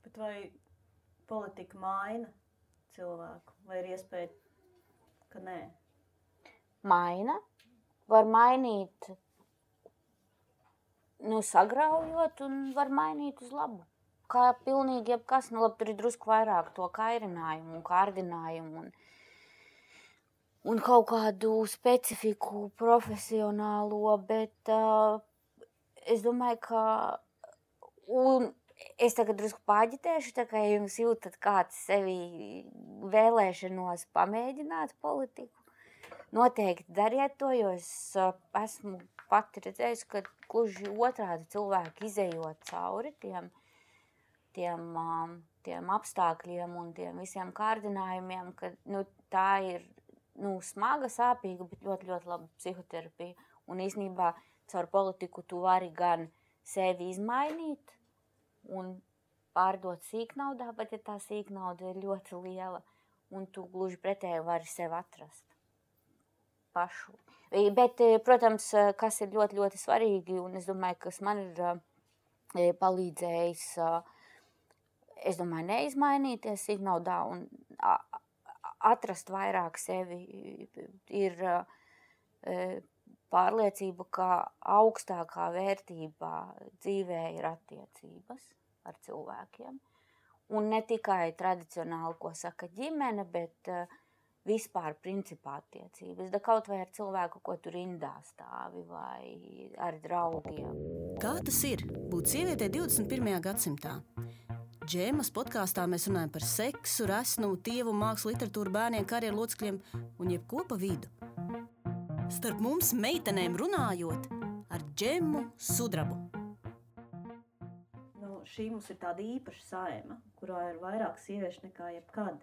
Bet vai politika maina cilvēku, vai ir iespēja, ka nē? Maina. Var mainīt, sagraujot, un var mainīt uz labu. Kā pilnīgi jebkas, tur ir drusku vairāk to kairinājumu un kārdinājumu un kaut kādu specifiku profesionālo, bet es domāju, ka Es tagad drusku pāģitēšu, tā kā jums jūtat kāds sevi vēlēšanos pamēģināt politiku. Noteikti dariet to, jo es esmu pati redzējusi, ka gluži otrādi cilvēki izejot cauri tiem apstākļiem un tiem visiem kārdinājumiem, ka tā ir smaga, sāpīga, bet ļoti, ļoti laba psihoterapija. Un īstenībā caur politiku tu vari gan sevi izmainīt un pārdot sīknaudā, bet ja tā sīknauda ir ļoti liela, un tu gluži pretēji vari sevi atrast pašu. Bet, protams, kas ir ļoti, ļoti svarīgi, un es domāju, kas man ir palīdzējis, es domāju, neizmainīties sīknaudā un atrast vairāk sevi, ir pārliecība, ka augstākā vērtībā dzīvē ir attiecības ar cilvēkiem. Un ne tikai tradicionāli, ko saka ģimene, bet vispār principā attiecības. Da kaut vai ar cilvēku, ko tu rindā stāvi, vai ar draugiem. Kā tas ir būt sievietei 21. gadsimtā? Džēmas podkāstā mēs runājam par seksu, resnumu, tievu, mākslu, literatūru, bērniem, karjeru locekļiem un jebko pa vidu. Starp mums meitenēm runājot ar Džemu Sudrabu. Šī mums ir tāda īpaša saima, kurā ir vairāk sieviešu nekā jebkad.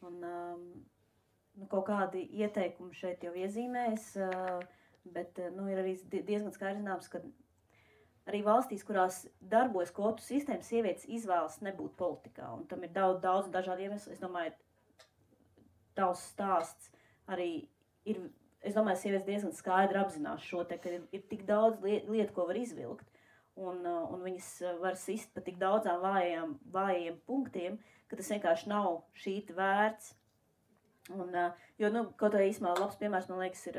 Un kaut kādi ieteikumi šeit jau iezīmēs, bet ir arī diezgan skaidrs zināms, ka arī valstīs, kurās darbojas kvotu sistēma, sievietes izvēlas nebūt politikā. Un tam ir daudz dažādi iemesli. Es domāju, tavs stāsts arī ir, es domāju, sievietes diezgan skaidri apzinās šo te, ka ir tik daudz lietu, ko var izvilkt. Un viņas var sist pa tik daudzām vājiem punktiem, ka tas vienkārši nav šīt vērts. Jo, kaut kā īsumā labs piemērs, man liekas, ir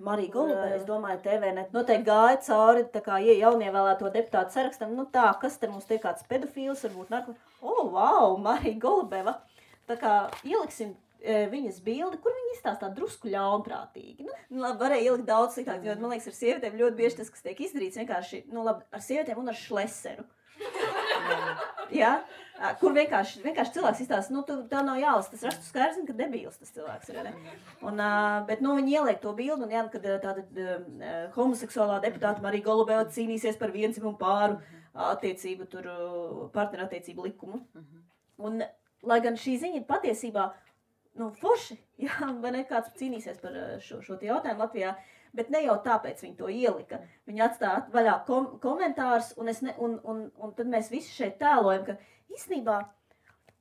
Marija Golube. Es domāju, TVNet noteikti gāja cauri tā kā jaunievēlēto deputātu sarakstam. Kas te mums te kāds pedofīls, varbūt wow, Marija Golubeva. Tā kā ieliksim viņas bildi, kur viņa izstāstā drusku ļaunprātīgi. Varēja ielikt daudz sliktāk, jo, man liekas, ar sievietēm ļoti bieži tas, kas tiek izdarīts, vienkārši, ar sievietēm un ar šleseru. Ja? Kur vienkārši cilvēks izstāsta, tā nav jālas, tas rastu skaidrs, ka debīls tas cilvēks ir, ne? Bet, viņi ieliek to bildu, un kad tāda homoseksuālā deputāta Marija Golubeva cīnīsies par vienzimumu pāru attiecību, partnerattiecību likumu. Un, lai gan šī ziņa ir patiesībā, forši, jā, vai ne, kāds cīnīsies par šo jautājumu Latvijā, bet ne jau tāpēc viņi to ielika. Viņi atstāja vaļā komentārus, un tad mēs visi šeit tēlojam, ka īstenībā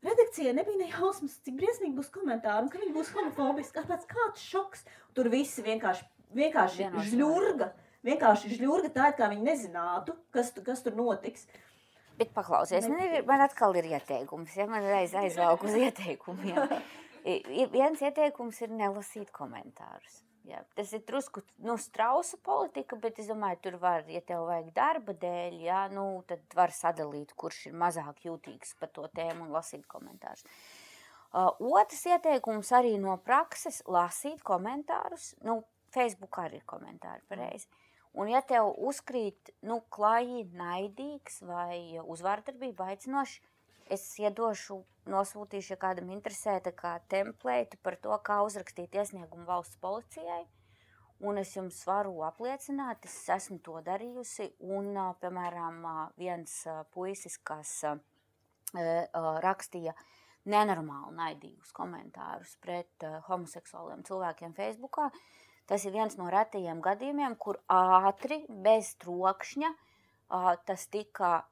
redakcijai nebija nejausmas, cik briesmīgi būs komentāri, un ka viņi būs homofobiski, kāds šoks. Tur visi vienkārši žļurga tā, kā viņi nezinātu, kas tur notiks. Bet paklausies, man atkal ir ieteikums, ja man aizvalku uz ieteikumiem. Viens ieteikums ir nelasīt komentārus. Jā, tas ir drusku strausa politika, bet es domāju, tur var, ja tev vajag darba dēļ, jā, tad var sadalīt, kurš ir mazāk jūtīgs par to tēmu un lasīt komentārus. Otrs ieteikums arī no prakses - lasīt komentārus. Facebook arī ir komentāri pareizi. Un ja tev uzkrīt, klaji, naidīgs vai uzvārdarbība aicinoši, es nosūtīšu, ja kādam interesē, tā kā templētu par to, kā uzrakstīt iesniegumu valsts policijai. Un es jums varu apliecināt, es esmu to darījusi. Un, piemēram, viens puisis, kas rakstīja nenormāli naidīgus komentārus pret homoseksuāliem cilvēkiem Facebookā, tas ir viens no retajiem gadījumiem, kur ātri, bez trokšņa, tas tika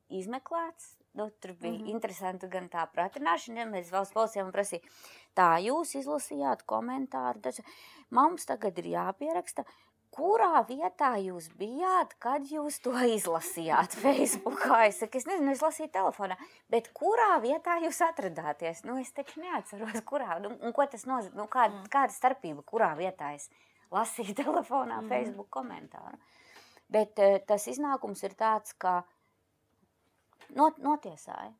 izmeklēts. Tur bija interesanti gan tā pratināšana, ja mēs valsts policijām prasīja, tā jūs izlasījāt komentāru, mums tagad ir jāpieraksta, kurā vietā jūs bijāt, kad jūs to izlasījāt Facebookā. Es saku, es nezinu, es lasīju telefonā, bet kurā vietā jūs atradāties? Es taču neatceros, kurā, un ko tas nozīmē, kāda starpība, kurā vietā es lasīju telefonā Facebook komentāru. Bet tas iznākums ir tāds, ka notiesāja.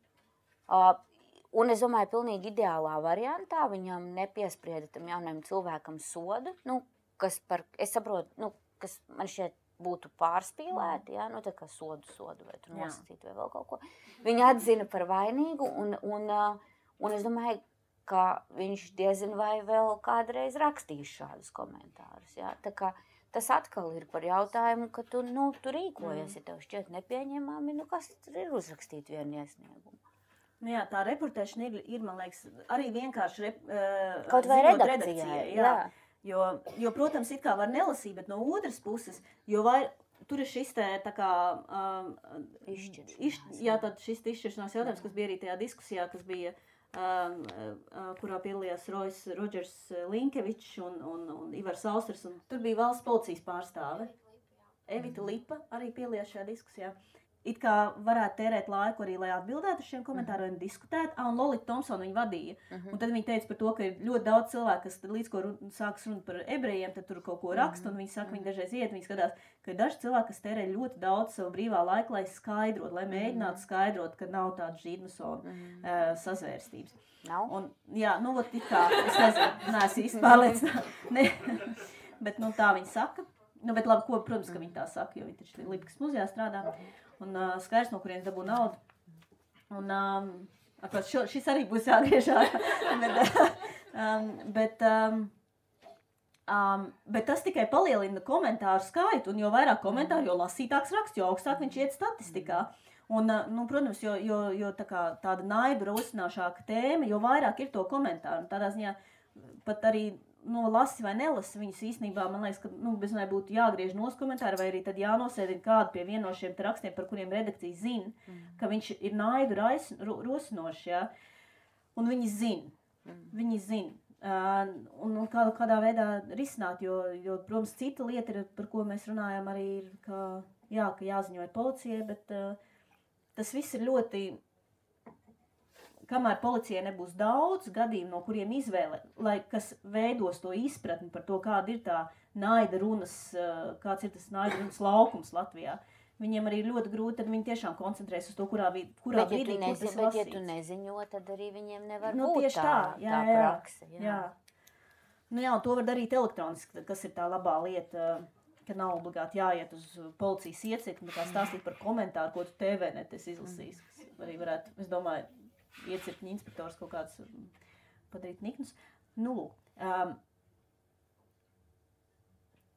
Un es domāju, pilnīgi ideālā variantā viņam nepiesprieda tam jaunajam cilvēkam sodu, kas man šķiet būtu pārspīlēti, jā, nu tā kā sodu vai tur nosacītu vai vēl kaut ko. Viņi atzina par vainīgu un es domāju, ka viņš diezin vai vēl kādreiz rakstīs šādus komentārus, jā. Tā kā tas atkal ir par jautājumu, ka tu rīkojies, ja tev šķiet nepieņemami, kas tur ir uzrakstīt vienu iesniegumu. Nu jā, tā reportēšana ir, man liekas, arī vienkārši kaut vai redakcijai, jā. Jo, protams, it kā var nelasīt, bet no otras puses, tur ir šis tā kā izšķiršanās jautājums, kas bija arī tajā diskusijā, kas bija, kurā piedalījās Rodžers Linkevičs un Ivars Austers, un tur bija valsts policijas pārstāve. Evita Lipa arī piedalījās šajā diskusijā. It kā varētu tērēt laiku arī, lai atbildētu uz šiem komentāriem, diskutētu, un Lolita Thompsona viņa vadīja. Un tad viņa teica par to, ka ir ļoti daudz cilvēku, kas līdz ko sākas runāt par ebrejiem, tad tur kaut ko raksta, un viņi saka, viņi dažreiz iet, viņi skatās, ka ir daži cilvēki, kas tērē ļoti daudz savu brīvā laika, lai skaidrot, lai mēģinātu skaidrot, ka nav tāda žīdmasona sazvērstības. Nav? Un, jā, nu, ot, it kā, es nezinu, neesmu īsti pārliecināta, bet, nu, tā viņa saka. Nu, bet labi, protams, ka viņi tā saka, jo viņi taču Lipikas muzejā strādā. Un skaidrs, no kuriem dabū naudu. Un šis arī būs jāgriež bet tas tikai palielina komentāru skaitu, un jo vairāk komentāru, jo lasītāks raksts, jo augstāk viņš iet statistikā. Un, nu, protams, jo tāda naidu rosināšāka tēma, jo vairāk ir to komentāru. Un tādā ziņā pat arī lasi vai nelasi viņus īstenībā, man liekas, ka bezmēr būtu jāgriež nos komentāri, vai arī tad jānosēdina kādu pie viena no šiem rakstiem, par kuriem redakcija zina, ka viņš ir naidu rosinošs, jā. Un viņi zina. Viņi zina. Un kādā veidā risināt, jo, protams, cita lieta, ir, par ko mēs runājam, arī ir, ka jāziņo policijai, bet tas viss ir ļoti... Kamēr policijai nebūs daudz gadījumu, no kuriem izvēle, kas veidos to izpratni par to, kāda ir tā naida runas, kāds ir tas naida runas laukums Latvijā, viņiem arī ir ļoti grūti, tad viņi tiešām koncentrēs uz to, kurā brīdī, kur tas lasīts. Bet, ja tu neziņo, tad arī viņiem nevar būt tieši tā prakse. Jā. Nu jā, un to var darīt elektroniski, kas ir tā labā lieta, ka nav obligāti jāiet uz policijas iecirkni, kā stāstīt par komentāru, ko tu TV net esi izlasījis. Arī varētu, es domāju, iecirkņu inspektors kaut kāds padarīt niknus. Nu, lūk.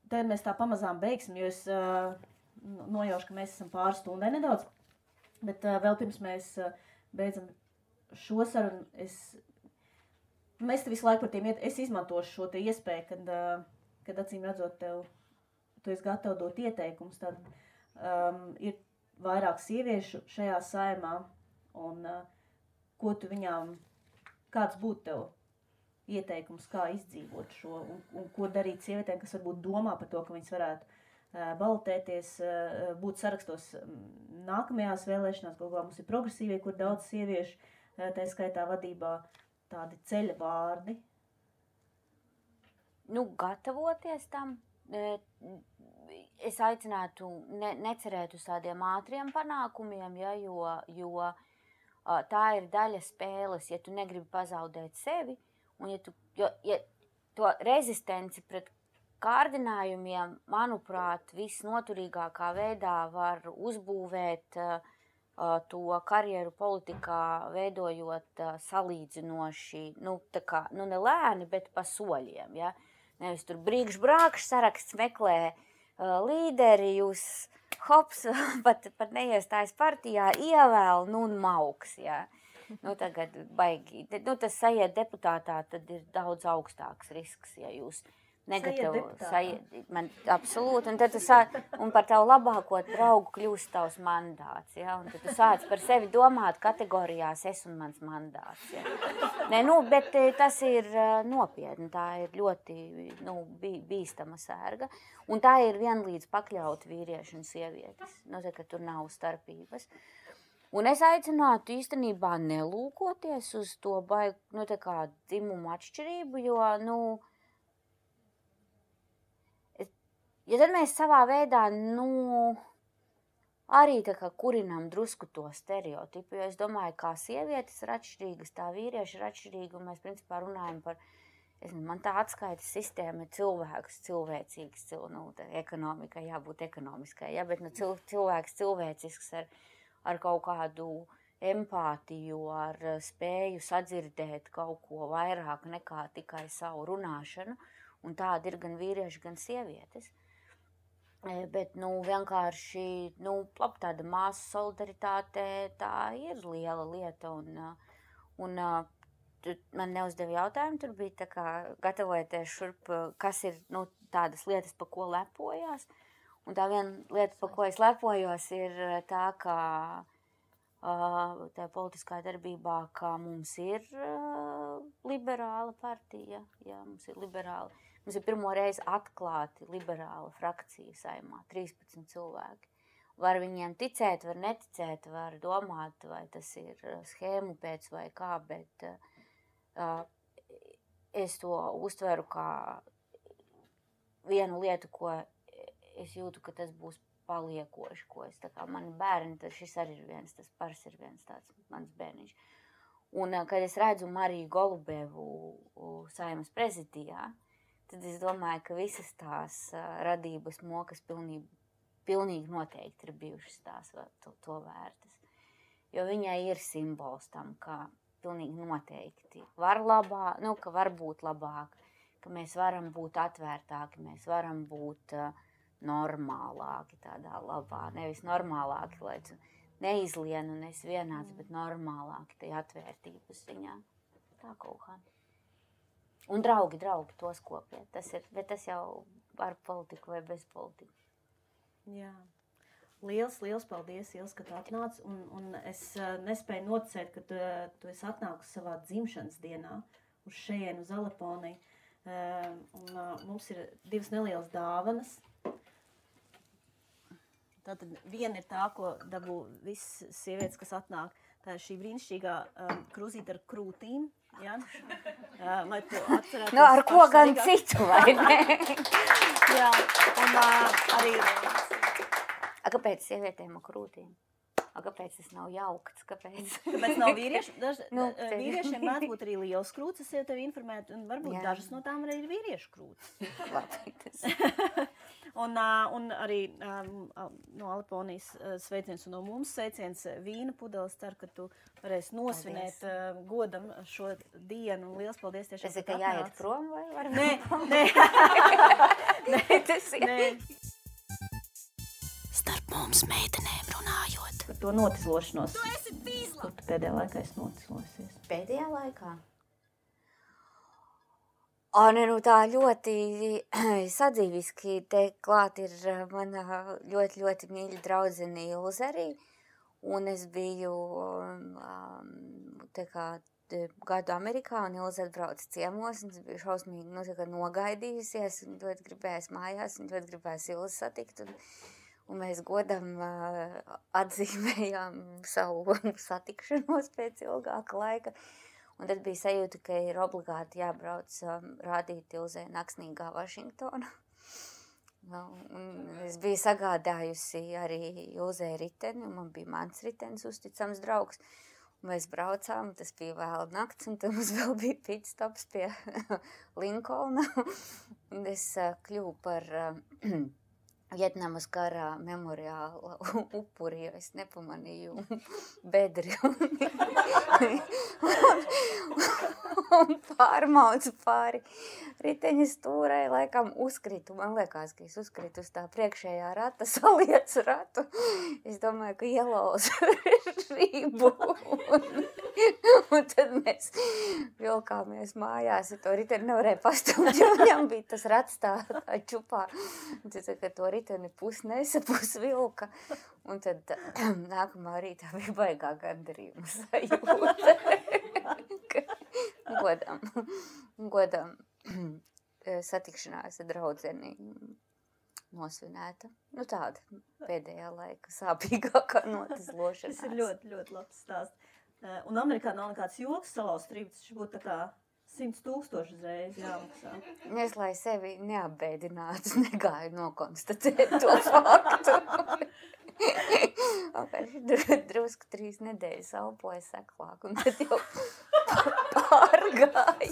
Tad mēs tā pamazām beigsim, jo es nojaušu, ka mēs esam pāris stundai nedaudz. Bet vēl pirms mēs beidzam šo sarunu, mēs te visu laiku par tiem es izmantošu šo te iespēju, kad acīm redzot tu esi gatava dot ieteikumus, tad ir vairāk sieviešu šajā saimā un ko tu viņām, kāds būtu tev ieteikums, kā izdzīvot šo, un ko darīt sievietēm, kas varbūt domā par to, ka viņas varētu balotēties, būt sarakstos nākamajās vēlēšanās, galvā mums ir progresīvie, kur daudz sieviešu, tā skaitā vadībā, tādi ceļa vārdi. Nu, gatavoties tam, es aicinātu necerēt uz tādiem ātriem panākumiem, ja, jo tā ir daļa spēles, ja tu negribi pazaudēt sevi, un ja to rezistenci pret kārdinājumiem, manuprāt, visnoturīgākā veidā var uzbūvēt to karjeru politikā, veidojot salīdzinoši, ne lēni, bet pa soļiem, ja? Nevis tur brīkš-brākš saraksts meklē līderi, jūs hops, pat neiestājas partijā, ievēl, un mauks, jā. Tagad baigi, tas sajiet deputātā, tad ir daudz augstāks risks, ja jūs man absolūti, un tad un par tavu labāko draugu kļūst tavs mandāts, ja, un tad tu sāc par sevi domāt kategorijās es un mans mandāts, ja. Bet tas ir nopietni, tā ir ļoti, bīstama sērga, un tā ir vienlīdz pakļaut vīrieši un sievietes, ka tur nav starpības. Un es aicinātu īstenībā nelūkoties uz to dzimumu atšķirību, jo, ja tad mēs savā veidā, arī kurinam drusku to stereotipu, jo es domāju, kā sievietes ir atšķirīgas, tā vīrieši ir atšķirīgi, un mēs principā runājam par Man tā atskaites sistēma ir cilvēks, cilvēcīgs, ekonomikai jābūt ekonomiskai, ja, bet cilvēks cilvēcisks ar kaut kādu empātiju, ar spēju sadzirdēt kaut ko vairāk nekā tikai savu runāšanu, un tāda ir gan vīrieši, gan sievietes. Bet, vienkārši, tāda māsu solidaritāte, tā ir liela lieta, un man neuzdeva jautājumu, tur bija tā kā gatavojoties šurp, kas ir, tādas lietas, pa ko lepojās, un tā viena lieta, pa ko es lepojos, ir tā, ka tā politiskā darbībā, ka mums ir liberāla partija, jā, mums ir liberāla. Mums ir pirmo reizi atklāti liberāla frakcija Saeimā, 13 cilvēki. Var viņiem ticēt, var neticēt, var domāt, vai tas ir schēmu pēc vai kā, bet es to uztveru kā vienu lietu, ko es jūtu, ka tas būs paliekoši, ko es tā kā mani bērni, tad šis arī ir viens, tas Pars ir viens tāds mans bērniņš. Un kad es redzu Mariju Golubevu Saeimas prezidijā, tad es domāju, ka visas tās radības mokas pilnīgi noteikti ir bijušas tās to vērtas. Jo viņai ir simbols tam, ka pilnīgi noteikti var ka var būt labāk, ka mēs varam būt atvērtāki, mēs varam būt normālāki tādā labā. Nevis normālāki, lai tu neizlien un esi vienāds, bet normālāki tajā atvērtības ziņā. Tā kaut kā. Un draugi tos kopiet. Bet tas jau ar politiku vai bez politiku. Jā. Liels paldies, Ils, ka tu atnāc. Un es nespēju noticēt, ka tu esi atnākusi savā dzimšanas dienā uz šejienu, uz Aleponiju. Mums ir 2 nelielas dāvanas. Tātad viena ir tā, ko dabū visas sievietes, kas atnāk. Tā ir šī brīnišķīgā krūzīte ar krūtīm. Ja? Lai tu atcerētos ar ko gan citu, vai ne? Jā, un arī... Kāpēc sievietēm ar krūtīm? Kāpēc tas nav jaukts? Kāpēc nav vīrieši? Vīriešiem mēdz būt arī liels krūts, es jau tevi informētu, un varbūt dažas no tām arī ir vīriešu krūts. Labi, tas... Un arī no Aleponijas sveiciens un no mums sveiciens vīna pudeles. Ceru, ka tu varēsi nosvinēt godam šo dienu. Un liels paldies tiešām. Tas ir, ka jāiet prom vai var? Nē, tas ir. Nē. Starp mums meitenēm runājot. Par to notislošanos. Tu esi pīzla! Kur tu pēdējā laikā esi notislosies? Pēdējā laikā? Tā ļoti sadzīviski te klāt ir mana ļoti, ļoti mīļa draudzene Ilze arī. Un es biju gadu Amerikā un Ilze atbrauca ciemos. Un es biju šausmīgi nogaidījusies un ļoti gribējās mājās un ļoti gribējās Ilze satikt. Un mēs godam atzīmējām savu satikšanos pēc ilgāka laika. Un tad bija sajūta, ka ir obligāti jābrauc rādīt Ilzei Naksnīgā Vašingtona. Es biju sagādājusi arī Ilzei riteni, un man bija mans ritenis uzticams draugs. Un mēs braucām, tas bija vēl nakts, un tad mums vēl bija pitstops pie Linkolna. Un es kļuvu par Vietnamas karā memoriāla upuri, jo es nepamanīju bedri un pārmaucu pāri riteņa stūrai, laikam uzkritu. Man liekas, ka es uzkritu uz tā priekšējā rata, saliecu ratu. Es domāju, ka ielauzu rību. Un tad mēs vilkāmies mājās, ja to riteni nevarēja pastumt, jo viņam bija tas rats tā čupā. Un tad, ka to riteni pusnesa, pusvilka. Un tad nākamā rītā bija baigā gandarījuma sajūta. Godam satikšanās ar draudzeni nosvinēta. Tāda pēdējā laika sāpīgākā notislošanās. Tas ir ļoti, ļoti labs stāsts. Un Amerikā nav nekāds joks salauzt rību, tas būtu tā kā 100,000 uzreiz jāmaksā. Es, lai sevi neapbēdinātu, negāju nokonstatēt to faktu. Drusku 3 nedēļas elpoju seklāk, un tad jau pārgāja.